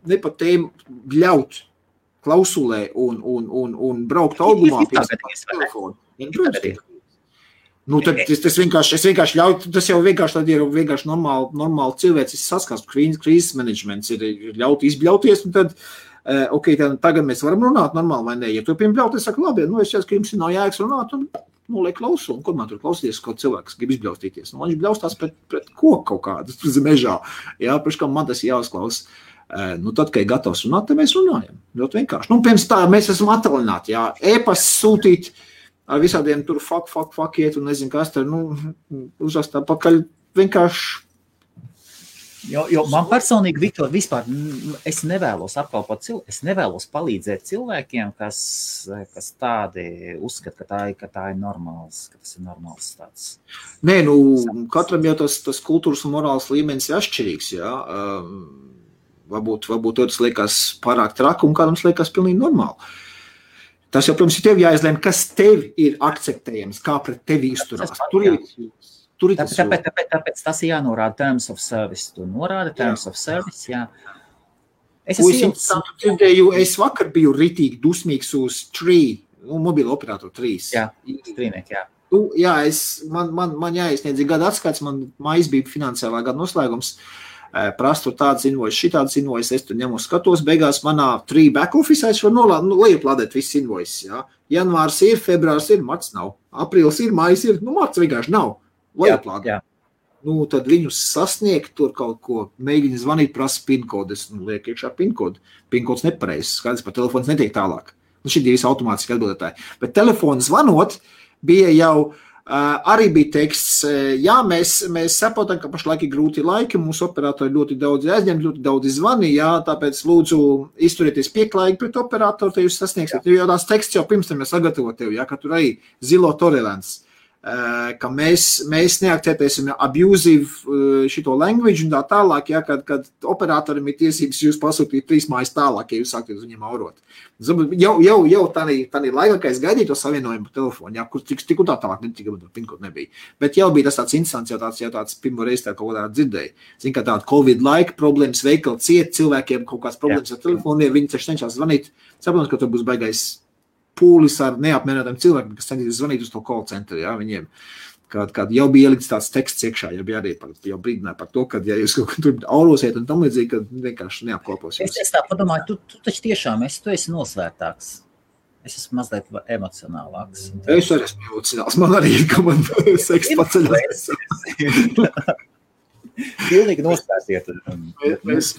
B: nepat tēmu ļaut klausulē un braukt augumā pie telefonu. Tad es vienkārši ļautu, tas jau vienkārši tad ir vienkārši normāli cilvēcis saskars, krīzes menedžments ir ļaut izbļauties, un tad tagad mēs varam runāt normāli vai ne. Ja tu piembļaut, es saku, labi, es šķiet, ka jums nav jēgas runāt, un liek klausu, un kur man tur klausīties, kaut cilvēks grib izbļaustīties. Viņš bļaustās pret koku kaut kādu mežā. Jā, priekškam man tas jāuzklaus. Tad, kad ir gatavs runāt, tad mēs runājam. Ļoti vienkārši. Pirms tā mēs esam atvaļināti, jā. E-pas sūtīt ar visādiem tur fuck iet, un nezinu, kas tur, uzrast pakaļ vienkārši.
A: Jo man personīgi, Viktor, vispār es nevēlos apkalpot cilvēku, es nevēlos palīdzēt cilvēkiem, kas tādi uzskata, ka tā ir normāls, ka tas ir normāls tāds.
B: Nē, katram jau tas kultūras un morāls līmenis ir atšķirīgs, jā. Varbūt tas liekas pārāk traki, un kādam liekas pilnīgi normāli. Tas jau, protams, ir tev jāizlēm, kas tev ir akceptējams, kā pret tevi izturās.
A: Tāpēc tas ir jānorāda terms of service. Tu norāda terms of service, jā.
B: Es vakar biju ritīgi dusmīgs uz mobilo operatoru 3.
A: Jā, strīnieki, jā.
B: Jā, man jāiesniedz gada atskaits, man mājas bija finansiālā gada noslēgums. Prastu tādas invoices, šitādas invoices, es tur ņemu skatos, beigās manā 3 back office es varu lejuplādēt visas invoices, jā. Janvārs ir, februārs ir, marts nav. Aprīlis ir, mājas ir, marts vienkārši nav. Lejuplādēt. Tad viņus sasniegt, tur kaut ko mēģina zvanīt, prasa PIN-kodu, es liek iekšā PIN-kodu. PIN-kods nepareizs, skaidrs, par telefons netiek tālāk. Šī ir visi automātiski atbildētāji. Bet telefonu zvanot bija jau Arī bija teksts, jā, mēs saprotam, ka pašlaik ir grūti laiki, mūsu operatori ļoti daudz aizņem, ļoti daudz zvani, jā, tāpēc lūdzu izturieties pieklājīgi pret operatoru, te jūs sasniegsiet, jo tās teksts jau pirms tam ir sagatavot tev, jā, ka tur arī zilo tolerants, ka mēs neakceptēsim abusive šito language un tā tālāk, jā, kad operatorim ir tiesības jūs pasūtīt 3 mājas tālāk, ja jūs sākties viņiem aurot. Jau tādā laikā, kad es gaidīju to savienojumu pa telefonu, jā, kur tik un tā tālāk pinkot nebija. Bet jau bija tas tāds instants, jau tāds pirmo reizi tā kaut kādā dzirdēja. Zin, ka tāda Covid laika problēmas, veikali ciet, cilvēkiem kaut kāds problēmas ar telefoniem, viņi taču cenšas zvanīt. Saprotams, ka tur būs baigais pūlis ar neapmierinātiem cilvēkiem, kas cenšas zvanīt uz to call centru, jā, viņiem. Kad jau bija ielikts tāds teksts iekšā, jau bija arī jau brīdināja par to, ka ja jūs kaut kur aurosiet un tam līdzīgi, kad vienkārši neapkopos jūs.
A: Es tā padomāju, tu taču tiešām tu esi nosvērtāks. Es esmu mazliet emocionālāks.
B: Es arī esmu emocionāls. Man arī ir, ka man seks paceļas.
A: Pilnīgi nosvērtiet. Mēs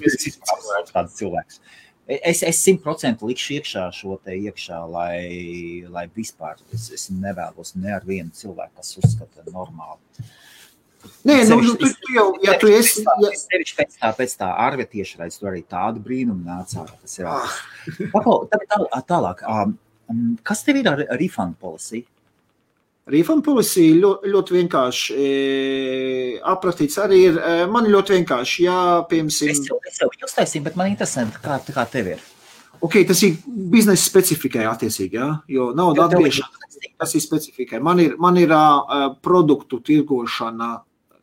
A: tāds cilvēks. Es 100% likšu iekšā šo te iekšā, lai vispār es nevēlos ne ar vienu cilvēku, kas uzskata normāli.
B: Nē, tu jau, ja tu esi...
A: Sevišķi pēc tā Arve tiešraidz, tu arī tādu brīnumu nācā. Tas ir. Tālāk, kas tev ir ar refund policy?
B: Refund policy ļoti vienkārši aprakstīts arī ir. Man ļoti vienkārši, jā, piemēram...
A: Es jau uztaisīju, bet man interesē, kā tev ir.
B: Ok, tas ir biznesa specifikai attiecīgi, jā, jo nauda atgriešana, tas ir specifikai. Man ir produktu tirgošana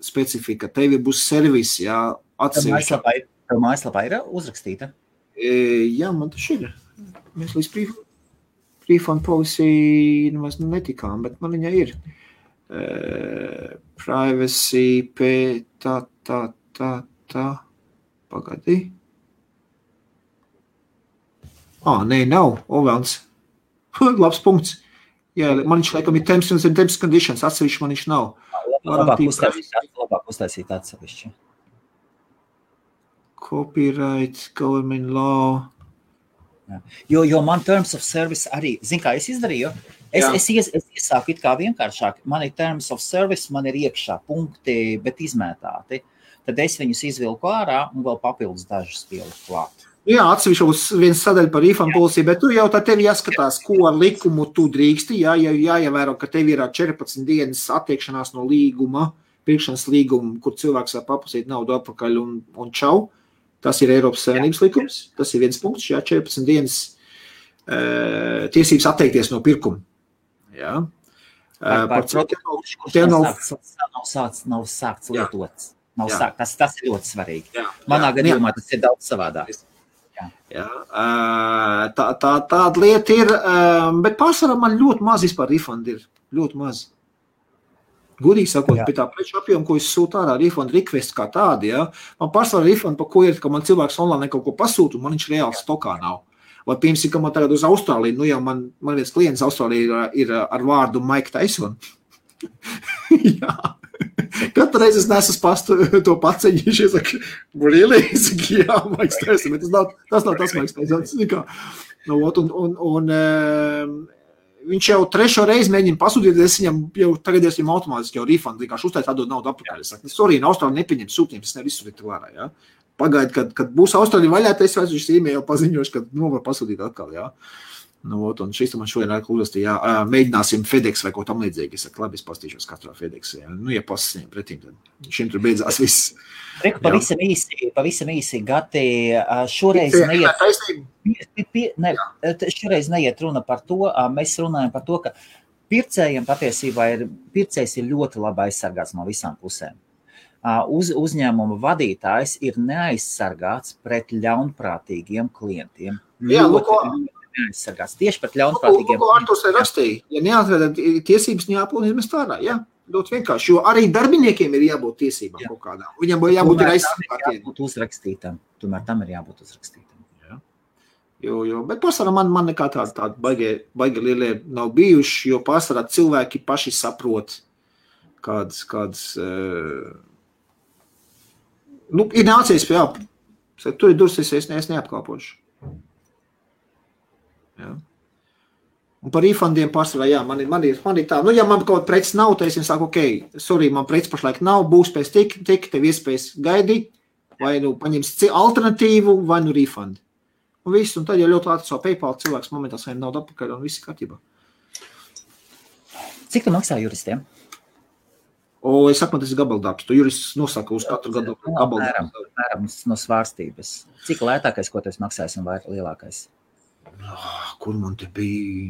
B: specifika, tevi būs servis, jā, atsevišķi.
A: Tev mājaslapā ir uzrakstīta?
B: Jā, man tas ir. Mēs līdz refund policy nemaz netikām, bet man viņa ir. Privacy, pagadi. Nē, nav, Ovelns. Labs punkts. Jā, man viņš laikam ir terms and conditions, atsevišķi man viņš nav.
A: Labāk uztaisīt atsevišķi.
B: Copyright, government law.
A: Jo man terms of service arī, zin kā es izdarīju, es iesāku it kā vienkāršāk, man ir terms of service, man ir iekšā punkti, bet izmētāti. Tad es viņus izvilku ārā un vēl papildus dažus pieliku klāt.
B: Jā, atsevišķi būs viens sadaļa par refund policy, bet tu jau tā tevi jāskatās, ko ar likumu tu drīksti, jāievēro, ka tev ir 14 dienas attiekšanās no līguma, pirkšanas līguma, kur cilvēks var papasīt naudu atpakaļ un čau. Tas ir Eiropas Savienības likums, tas ir viens punkts, 14 dienas tiesības atteikties no pirkuma. Jā.
A: Par produktu, kurš nav sākts lietots. Tas ir ļoti svarīgi. Manā gadījumā tas ir daudz savādāk.
B: Jā. Tāda lieta ir, bet pārsvarā man ļoti maz vispār refund ir, ļoti maz. Gudīgi sakot, pie tā preču apjoma, ko es sūtu ārā, refund request kā tādi, jā. Man pārsvarā refund, pa ko ir, ka man cilvēks online kaut ko pasūta, un man viņš reāli stokā nav. Vai piemēram, ka man tagad uz Austrāliju, jau man viens klients Austrālijā ir ar vārdu Mike Tyson. Jā. Katru reizi es nesu pastu to paceņīšu, es saku, really? Es saku, jā, Mike Tyson, bet tas nav tas Mike Tyson. Viņš jau 3. reizi mēģina pasūtīt, es viņam jau tagad esmu automātiski jau refund, vienkārši uztais atdod naudu atpakaļ. Es saku, sorry, Austrālija nepieņem sūtījumus, es nevisu sūtīt vērā, jā. Pagaid, kad būs Austrālija vaļā, es vairs īmē jau paziņošu, kad var pasūtīt atkal, jā. Un šis man šodien uzrastīja, mēģināsim FedEx vai ko tam līdzīgi. Es saku, labi, es pastīšos katrā FedEx, jā. Ja pasasņem pretīm, tad šim tur beidzās viss.
A: Reku, pavisam īsi, Gati, šoreiz neiet runa par to, mēs runājam par to, ka pircējiem patiesībā pircējs ir ļoti labi aizsargāts no visām pusēm. Uzņēmuma vadītājs ir neaizsargāts pret ļaunprātīgiem klientiem.
B: Jā,
A: neaizsargāts tieši pret ļaunprātīgiem
B: klientiem. Arturs ir rakstīja, ja neatveda tiesības jāpilnīt mēs tādā, jā. Ļoti vienkārši, jo arī darbiniekiem ir jābūt tiesībām kaut kādām. Viņam jābūt aizsargātiem.
A: Tomēr tam ir jābūt uzrakstītam.
B: Jo, bet pārsvarā man nekā tāda baigi lielie nav bijuši, jo pārsvarā cilvēki paši saprot, kādas ir nācies pie tur ir dursis, es neapkalpošu. Jā. Un par refundiem pārsvarā, jā, man ir tā, ja man kaut preces nav, tad es viņam saku, sorry, man preces pašlaik nav, būs pēc tik, tev iespējas gaidīt, vai paņems alternatīvu, vai refund. Un viss, un tad jau ļoti ātri savu PayPal cilvēks momentā saņem naudu atpakaļ, un viss kārtībā.
A: Cik tu maksā juristiem?
B: Es saku, man tas ir gabaldarbs. Tu jurists nosaka uz katru gadu gabaldarbs.
A: Mēram no svārstības. Cik lētākais, ko tu maksāsi, un vai lielākais?
B: Kur man te bija?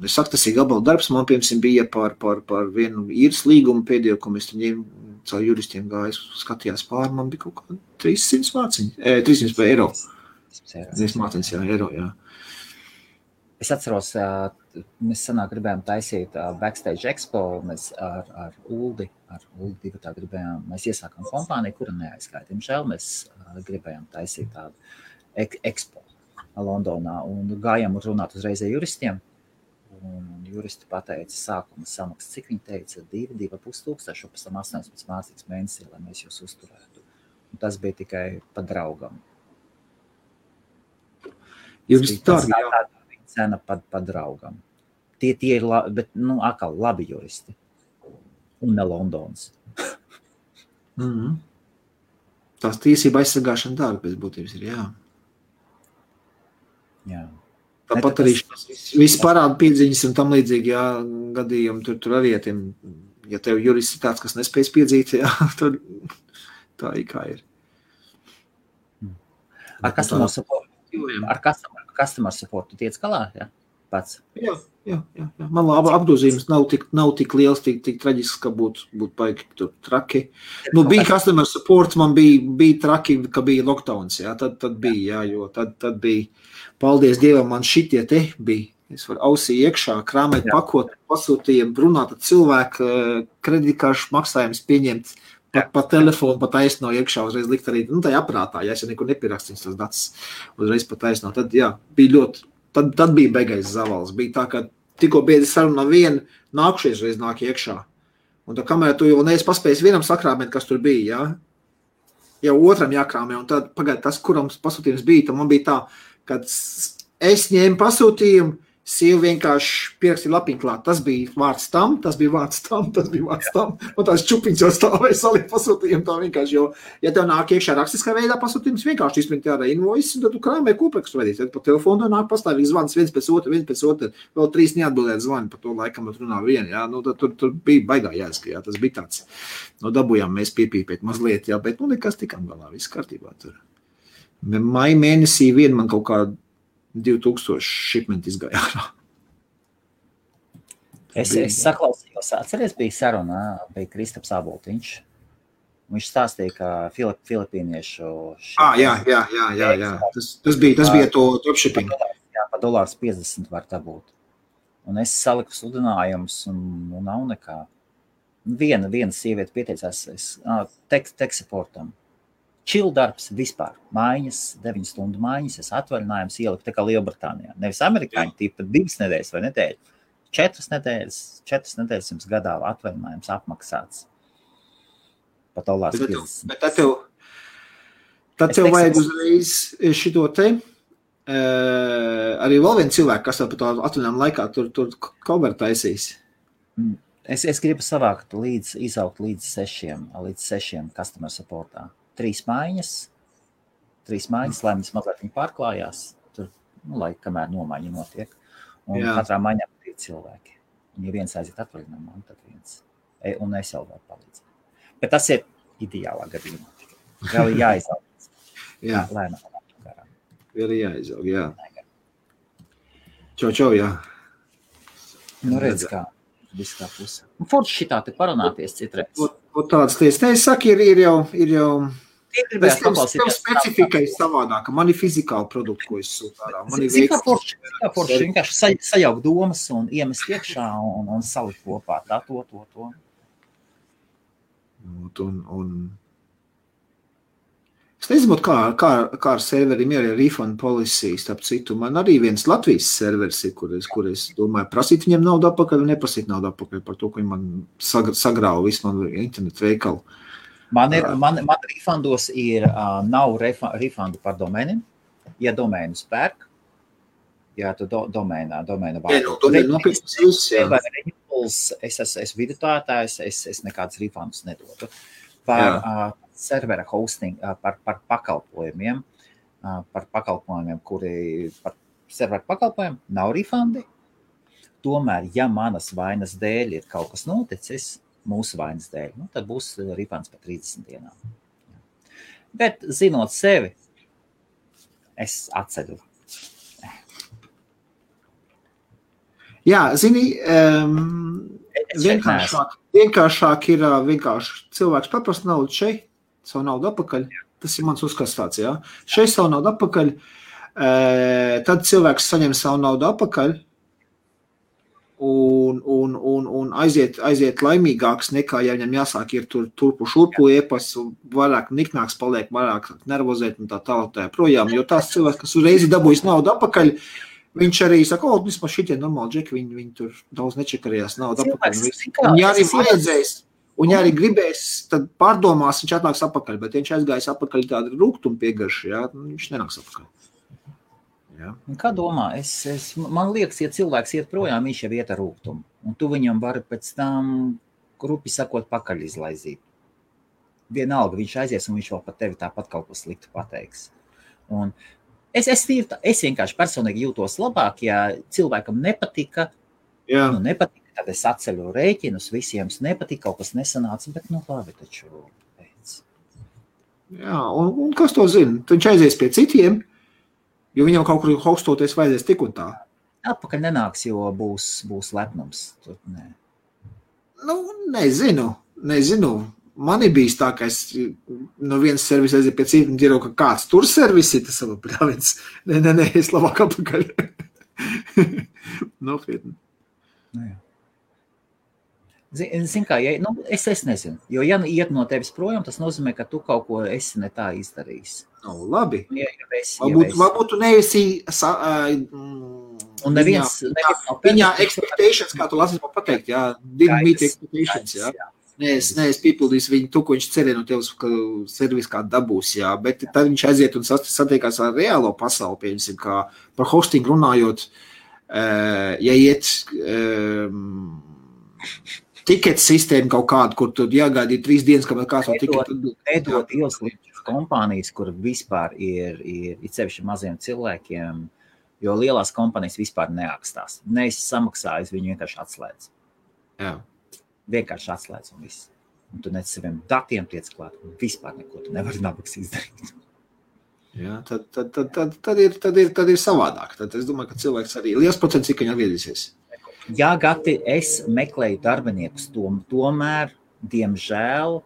B: Es saku, tas ir gabaldarbs. Man, piemēram, bija par vienu īres līgumu pēdējo, ko mēs ņēmu caur juristiem gāju, skatījās pāri. Man bija kaut kā 300 mārciņi. 300 eiro. 300 mārciņas, eiro, jā.
A: Es atceros, mēs sanāk gribējām taisīt Backstage Expo, mēs ar Uldi divatā gribējām, mēs iesākām kompāniju, kura neaizskāja. Diemžēl mēs gribējām taisīt tādu Expo Londonā un gājām runāt uzreiz ar juristiem. Un juristi pateica sākuma samaksas, cik viņi teica, 2,5 tūkstoši, pēc tam 18 mācīgs mēnesī, lai mēs jūs uzturētu. Un tas bija tikai pa draugam.
B: Juristi tā, jā.
A: Cena pa draugam. Tie ir bet, atkal labi juristi. Un ne Londons.
B: Tās tiesība aizsargāšana dārga pēc būtības ir, jā.
A: Jā.
B: Tāpat arī viss parāda piedziņas un tam līdzīgi, jā, gadījumi tur arī, ja tev jurists ir tāds, kas nespējas piedzīt, jā, tad tā ir kā ir.
A: Ar customer support tu tiec galā, jā? Pats?
B: Jā. Man labi apgrozījums nav tik liels, tik traģisks, ka būtu paigi tur traki. Bija customer support, man bija traki, ka bija lockdowns, jā, tad bija, jā, jo tad bija, paldies Dievam, man šitie te bija. Es varu ausī iekšā, krāmēt pakot, pasūtījiem, runāt ar cilvēku, kreditkāršu maksājums pieņemt, pa telefonu, pa taisno iekšā, uzreiz likt arī, tajā aprātā, ja es nekur nepierakstījums tas datus, uzreiz pa taisno. Tad, jā, bija ļoti, tad bija beigais zavals. Bija tā, ka tikko biedri sarunā vienu, nākušies reiz nāk iekšā. Un tā kamēr tu jau neesi paspējis vienam sakrāmēt, kas tur bija, jā, jau otram jākrāmē, un tad pagaid tas, kuram pasūtījums bija, tad man bija tā, kad es ņēmu pasūtījumu, sieva vienkārši pierakstīja lapiņu klāt. Tas bija vārds tam, tas bija vārds tam, tas bija vārds tam. Un tās čupiņas jau stāvēja salikt pasūtījumu tā vienkārši, jo, ja tev nāk iekšā rakstiskā veidā pasūtījums, vienkārši izprint jāra invoice, un tad tu krāmē kopēkstu veidīt. Tad pa telefonu nāk pastāvīgi zvans viens pēc otru, vēl 3 neatbildēt zvani, pa to laikam runā vienu, jā. Tad tur bija baigā jāska, jā, tas bija tāds. Dabujām mēs piepīpēt mazliet, jā, bet nekas tikām galā, viss kārtībā tur. Maija mēnesī vien man kaut kā 2000 šipmenti izgāja ārā.
A: Es saklausījos, atceries, bija saruna, bija Kristaps Aboltiņš. Viņš stāstīja, ka filipīniešu...
B: Jā. Tas bija to dropshipping.
A: Jā, pa $50 var dabūt. Un es saliku sludinājumus un nav nekā. Viena sieviete pieteicās tech supportam. Chill darbs vispār. Mājiņas, 9 stundu mājiņas, es atvaļinājums ieliku tā kā Lielbritānijā. Nevis amerikāņi, tipa 2 nedēļas vai nedēļu. 4 nedēļas jums gadā atvaļinājums apmaksāts. Pat $50.
B: Bet tad tev vajag uzreiz šito te. Arī vēl viens cilvēks, kas par to atvaļinājumu laikā tur cover taisīs.
A: Es gribu savākt izaugt līdz 6 customer supportā. 3 mājiņas, lai mēs mazliet viņi pārklājās, tur, lai kamēr nomaiņa notiek. Un katrā maiņā 2 cilvēki. Un ja viens aiziet atvaļinājumā, tad viens. Un es jau varu palīdzēt. Bet tas ir ideālā gadījumā. Vēl ir jāizaug.
B: Jā.
A: Lēnām.
B: Vēl ir jāizaug, jā. Čau, jā.
A: Redz kā. Viss kā puse. Un forši šitā te parunāties citreiz.
B: Un tādas lietas. Es saku, ir jau tev specifika ir savādāka. Man ir fizikāli produkti, ko es sūtu ārā.
A: Cik kā forši vienkārši sajaukt domas un iemest iekšā un salikt kopā. Tā, to.
B: Es nezinu, kā ar serveriem ir refund policy, starp citu. Man arī viens Latvijas serveris ir, kur es domāju, prasīt viņiem naudu atpakaļ un neprasīt naudu atpakaļ par to, ka viņi man sagrāva visu man internetu veikalu.
A: Man refundos nav refundu par domēniem. Ja domēnus pērk, Jā, tu domēna
B: Jā,
A: vārdu.
B: nopirktas viss, jā.
A: Es esmu vidutājs, es nekādus refundus nedotu. Par servera hosting, par pakalpojumiem, kuri par serveru pakalpojumiem nav refundi. Tomēr, ja manas vainas dēļ ir kaut kas noticis, mūsu vainas dēļ, tad būs refunds par 30 dienām. Bet, zinot sevi, es atceļu.
B: Jā, zini, vienkāršāk ir cilvēks paprast naudu šeit, savu naudu atpakaļ. Tas ir mans uzskats tāds, jā. Šeit savu naudu atpakaļ, tad cilvēks saņem savu naudu atpakaļ un aiziet laimīgāks nekā, ja viņam jāsāk ir turpu šurpu iepas, vairāk niknāks paliek, vairāk nervozēt un tā projām, jo tās cilvēks, kas uzreiz dabūjas naudu atpakaļ, viņš arī saka, vismaz šitie normāli džeki, viņi tur daudz nečekarījās naudu atpakaļ. Un ja arī vajadzēs, un ja arī gribēs, tad pārdomās, viņš atnāks atpakaļ, bet viņš aizgājis atpakaļ tādu rūgtumu piegarši, jā, viņš nenāks atpakaļ. Jā.
A: Kā domā? Man liekas, ja cilvēks iet projām, viņš jau iet ar rūgtumu, un tu viņam vari pēc tam, grupi sakot, pakaļ izlaizīt. Vienalga, viņš aizies, un viņš vēl par tevi tāpat kaut ko sliktu pateiks. Un Es vienkārši personīgi jūtos labāk, ja cilvēkam nepatika, tad es atceļu rēķinus, visiem nepatika, kaut kas nesanāca, bet labi taču pēc.
B: Jā, un kas to zina? Viņš aizies pie citiem, jo viņam kaut kur hostoties vajadzēs tik un tā.
A: Atpakaļ nenāks, jo būs lepnums. Tur, nē.
B: Nezinu. Man ir bijis tā, ka es no vienas servisa aiziet pie citu un dzirdu, ka kāds tur servisi, tas savu pļāviens. Nē, es labāk apakaļ. Nopietni.
A: Zin kā, es nezinu, jo ja iet no tevis projām, tas nozīmē, ka tu kaut ko esi ne tā izdarījis.
B: Labi.
A: Varbūt
B: tu neesi
A: un neviens
B: viņā expectations, kā tu lasīs man pateikt, jā, didn't meet expectations, jā. Nē, es piepildīšu viņu to, ko viņš cerēja no tevis, ka servis kā dabūs, jā, bet tad viņš aiziet un satiekās ar reālo pasauli, piemēram, kā par hosting runājot, ja iet tiket sistēmu kaut kādu, kur tu jāgaidīja 3 dienas, kamēr kāds no tiketu.
A: Nedod ieslīdus kompānijas, kur vispār ir sevišķi maziem cilvēkiem, jo lielās kompānijas vispār neakstās. Neesi samaksājis, viņu vienkārši atslēdz.
B: Jā.
A: Vienkārši atslēdz un viss. Un tu nec saviem datiem tiec klāt, un vispār neko tu nevari nabaks izdarīt.
B: Jā, tad ir savādāk. Tad es domāju, ka cilvēks arī liels procents, cik viņi atgriezīsies.
A: Jā, Gati, es meklēju darbiniekus, tomēr, diemžēl,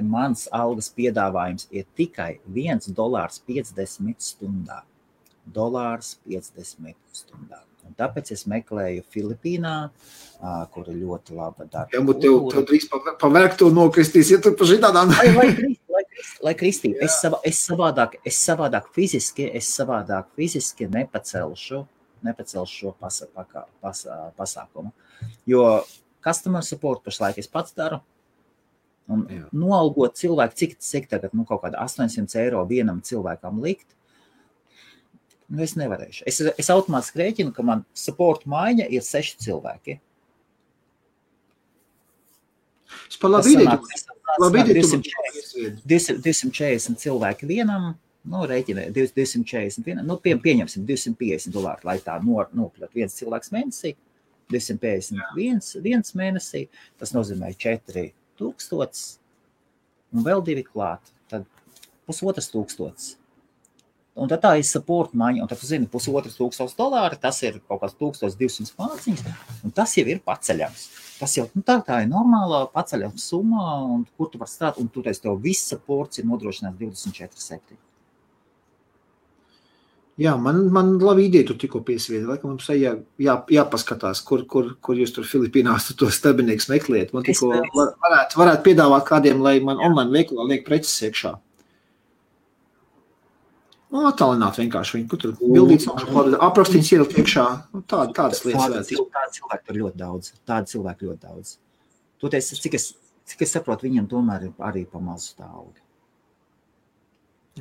A: mans algas piedāvājums ir tikai $1.50 stundā. $1.50 stundā. Un tāpēc es meklēju Filipīnā, kur ir ļoti laba darba.
B: Jā, bet tev drīz pa vergtu nokristīs, ja tu pa šitādām.
A: Lai kristī, es savādāk fiziski nepacelšu šo pasākumu. Jo customer support pašlaik es pats daru. Un noalgot cilvēku, cik tagad, kaut kāda 800 eiro vienam cilvēkam likt, es nevarēšu. Es automātiski rēķinu, ka man support maiņa ir 6 cilvēki.
B: Es par labi ideju.
A: 240 cilvēki vienam, rēķinē, 241, pieņemsim $250, lai tā nopļot viens cilvēks mēnesī, 251 mēnesī, tas nozīmē 4000 un vēl 2 klāt, tad $1500. Un tad tā ir support maiņa, un tad tu zini, $1500, tas ir kaut kāds 1200 māciņas, un tas jau ir paceļams. Tas jau, tā ir normālā paceļama summa, un kur tu var strādāt, un toreiz tev viss supports ir nodrošināts 24/7.
B: Jā, man labi ideja tu tikko piesviedi, laikam mums jāpaskatās, kur jūs tur Filipīnās tos darbinieks meklējat. Man tikko varētu piedāvāt kādiem, lai man online veikalā liek preces iekšā. Attālināt vienkārši viņu, kur tur bildīts, aprakstīts ielikt iekšā, tādas lietas.
A: Tādi cilvēki ļoti daudz. Toties, cik es saprotu, viņiem tomēr ir arī pa mazu tā alga.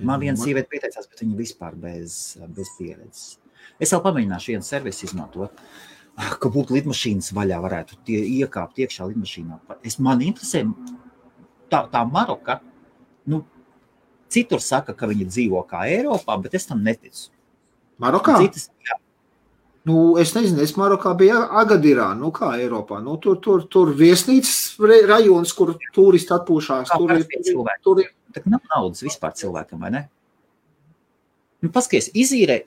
A: Man viena sieviete pieteicās, bet viņa vispār bez pieredzes. Es vēl pamēģināšu vienu servisu izmantot, ka būtu lidmašīnas vaļā, varētu tie iekāpt iekšā lidmašīnā. Man interesē tā Maroka, citur saka, ka viņi dzīvo kā Eiropā, bet es tam neticu.
B: Marokā?
A: Citas, jā.
B: Es nezinu, es Marokā biju Agadirā, kā Eiropā. Tur viesnīcas rajons, kur turisti atpūšās.
A: Tur ir. Tak nav naudas vispār cilvēkam, vai ne? Paskaties, izīrē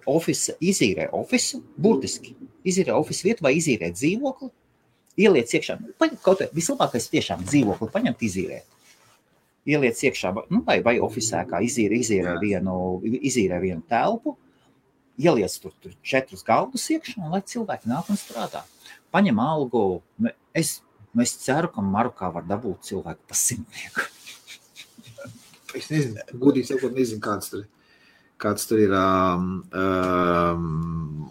A: ofisu, burtiski. Izīrē ofisu vietu vai izīrē dzīvokli, ieliec iekšā. Kaut vislabākais tiešām dzīvokli paņemt izīrēt. Ieliec iekšā, vai ofisē, kā izīrē vienu telpu, ieliec tur 4 galdus iekšā, un lai cilvēki nāk un strādā. Paņem algu. Es ceru, ka Marokā var dabūt cilvēku pa 100.
B: Es nezinu, gudīgi sakot, nezinu, kāds tur ir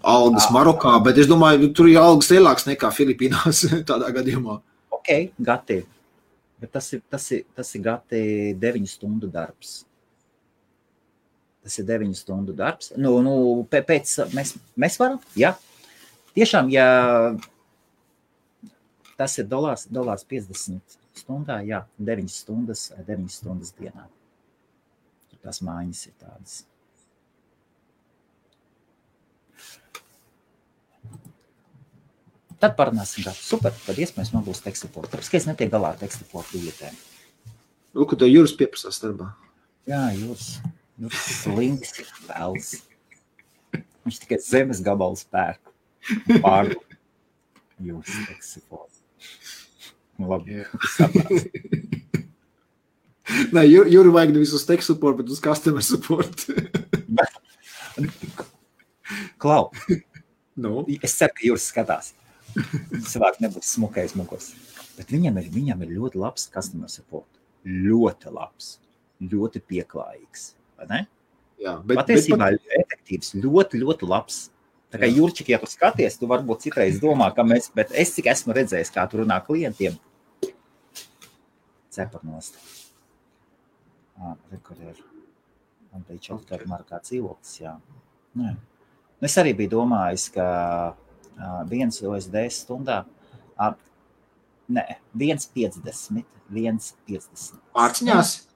B: algas Marokā, bet es domāju, tur ir algas lielāks nekā Filipīnās tādā gadījumā.
A: Ok, gati. Bet tas ir gati 9 stundu darbs. Tas ir 9 stundu darbs. Pēc mēs varam, jā. Tiešām, ja tas ir $50 stundā, jā, 9 stundas dienā. Tās mājas ir tādas. Tad parunāsim, kā super, tad iespējams man būs tekstiporta. Tāpēc, ka es netiek galā ar tekstiporta lietēm.
B: Ka tev Juris pieprasās darbā.
A: Jā, Juris slinks vēls. Viņš tikai zemes gabalu spērku. Pārdu. Juris tekstiporta. Labi, saprāt.
B: Nē, Juri vajag nevis uz tech support, bet uz customer support.
A: Klau, es ceru, ka Juris skatās. Cilvēki nebūs smukais mugurs. Bet viņam ir ļoti labs customer support. Ļoti labs. Ļoti pieklājīgs. Vai ne?
B: Jā,
A: patiesībā efektīvs. Ļoti, ļoti labs. Tā kā Jurčik, ja tu skaties, tu varbūt citreiz domā, ka bet es cik esmu redzējis, kā tu runā klientiem. Ceparnost. Rekur ir. Man bija čeltari Marokā dzīvoklis, jā. Nē. Es arī biju domājis, ka 1 USD stundā, 1,50.
B: Pārciņās?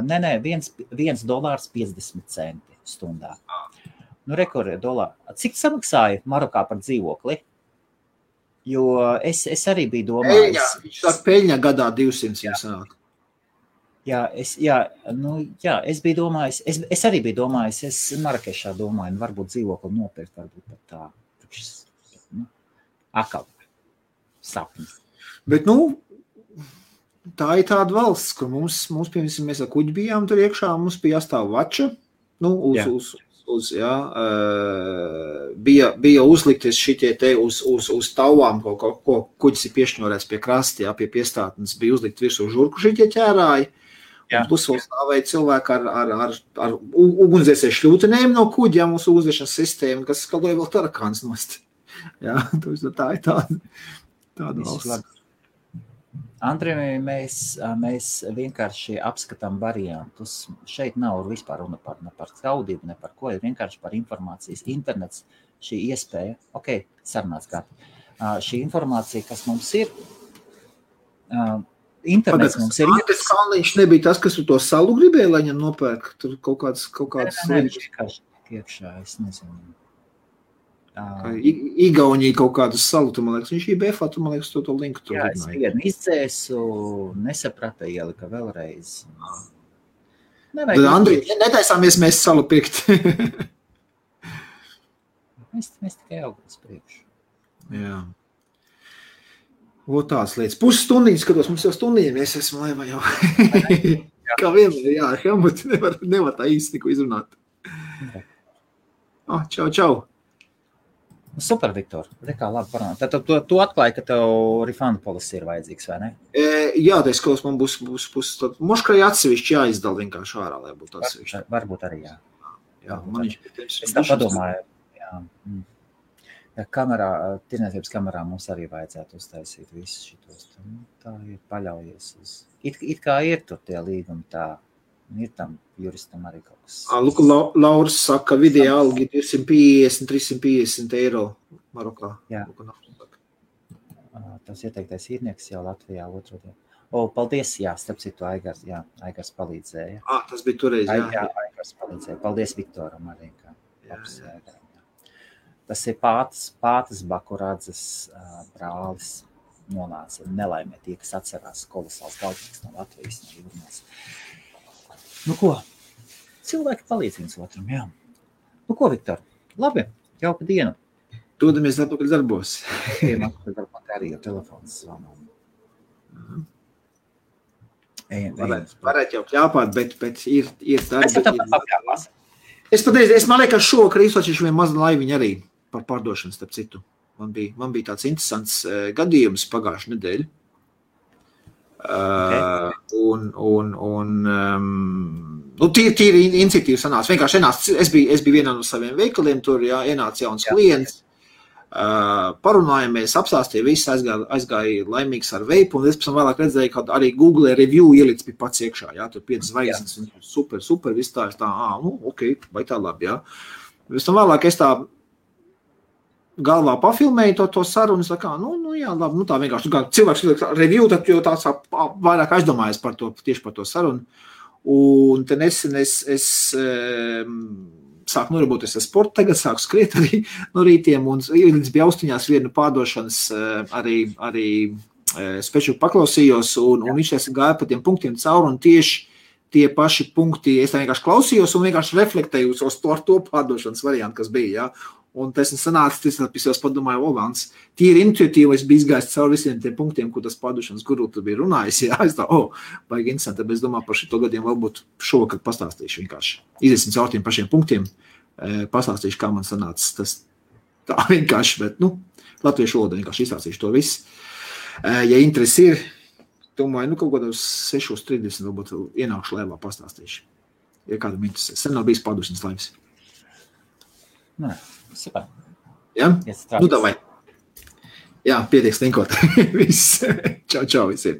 A: Nē, $1.50 stundā. Rekur ir dolāri. Cik samaksāja Marokā par dzīvokli? Jo es arī biju domājis.
B: Viņš saka, peļņa gadā 200 sanāk.
A: Es biju domājis, es arī biju domājis, es Marakešā domāju, varbūt dzīvokli nopirkt, varbūt pat tā. Akal. Sapnis.
B: Bet, tā ir tāda valsts, kur mums piemēram, mēs ar kuģi bijām tur iekšā, mums bija jāstāv vača, bija uzlikties šitie te uz tauvām, ko kuģis ir piešņorēts pie krasti, pie piestātnes, bija uzlikt virsū žurku šitie ķērāji. Plus vēl stāvēja cilvēki ar ugunsdzēsēju šļūtenēm no kuģi, mums ugunsdzēšanas sistēma, kas skaloja vēl tarakāns nost. Tā ir tāda valsts.
A: Andrej, mēs vienkārši apskatām variantus. Šeit nav vispār runa par skaudību, ne par ko, ir vienkārši par informācijas. Internets, šī iespēja, sarunāts kā. Šī informācija, kas mums ir, internets mums ir.
B: Tas Kalniņš nebija tas, kas to salu gribēja, lai viņam nopērk. Tur kaut kāds
A: vienkārši iekšā, es nezinu.
B: Igaunija kaut kādu salu, tu, man liekas, viņš IBF, tu, man liekas, to linku tur.
A: Jā, es vienu izdzēsu, nesaprata, ielika vēlreiz.
B: Andri, netaisāmies mēs salu pirkt.
A: mēs tikai augās priekšu.
B: Jā. Tās lietas. Pusstundiņas skatos, mums jau stundiņiem, es esmu laivā jau. Kā vienmēr, jā, Helmut, nevar tā īsti neko izrunāt. Čau.
A: Super, Viktor. Rekā, labi parunāt. Tad tu atklāji, ka tev refund policy ir vajadzīgs, vai ne?
B: Jā, tā skatos, man būs moškai atsevišķi jāizdala vienkārši ārā, lai būtu atsevišķi.
A: Varbūt arī, jā.
B: Es
A: tā padomāju, jā. Tirniecības kamerā mums arī vajadzētu uztaisīt visus šitos. Tā ir paļaujies uz. It kā ir tur tie līgumi tā. Ir tam juristam arī kaut kas.
B: Luka Lauris saka, vidēja algi 250-350 eiro Marokā.
A: Jā. Tas ieteiktais īrnieks jau Latvijā otrodien. Paldies, jā, starp citu Aigars palīdzēja.
B: Tas bija toreiz, jā.
A: Jā, Aigars palīdzēja. Paldies Viktoram arī. Tas ir Pātas Bakuradzes brālis nonāca nelaimē tie, kas atcerās kolosāls galvnieks no Latvijas, no Jūrmās. Nu ko, cilvēki palīdz viens otram, jā. Nu ko, Viktor, labi, jauka diena.
B: Dodamies atpakaļ darbos.
A: Darbot arī ar telefons zvanām.
B: Varētu jau kļāpāt, bet ir darbi.
A: Es tāpat apkļāpās.
B: Es man liekas, šovakar izsočīšu vien mazu laiviņu arī par pārdošanu, starp citu. Man bija tāds interesants gadījums pagājušu nedēļu. Tīri iniciatīva sanāca. Vienkārši es biju vienā no saviem veikaliem, tur ienāca jauns klients. Parunājamies, apstāstīja, viss aizgāja laimīgs ar veipu, un es pēc tam vēlāk redzēju, ka arī Google review ielic bija pats iekšā, tur 5 zvaigznes, super, viss tā, ok, vai tā labi, jā. Pēc tam vēlāk es tā galvā pafilmēju to sarunu, jā, labi, tā vienkārši, cilvēks review, tad jau tāds vairāk aizdomājas tieši par to sarunu, un te nesen es sāku nodarboties ar sportu, tagad sāku skriet arī no rītiem, un līdz bija austiņās vienu pārdošanas arī speču paklausījos, un viņš gāja pa tiem punktiem cauri, un tieši tie paši punkti, es tā vienkārši klausījos un vienkārši reflektēju uz to pārdošanas variantu, kas bija, jā. Un tas sanāca, es padomāju, Vans, tīri intuitīvi, es biju izgājis cauri visiem tiem punktiem, ko tas pārdošanas guru tur bija runājis, jā, es tā, baigi interesanti, bet es domāju par šito gadiem varbūt šovakar pastāstīšu vienkārši. Iziesim caur tiem pašiem punktiem, pastāstīšu, kā man sanāca tas tā vienkārši, bet, latviešu valodā vienkārši izstāstīšu to visu. Ja interesi ir, domāju, kaut kādos 6:30 varbūt ienākšu laivā pastāstīšu, ja kādam interesē. Sen nav bijis pārdošanas laivas.
A: Nē. Super.
B: Ja? Davai. Jā, pietiek stinkot. Viss. Čau visiem.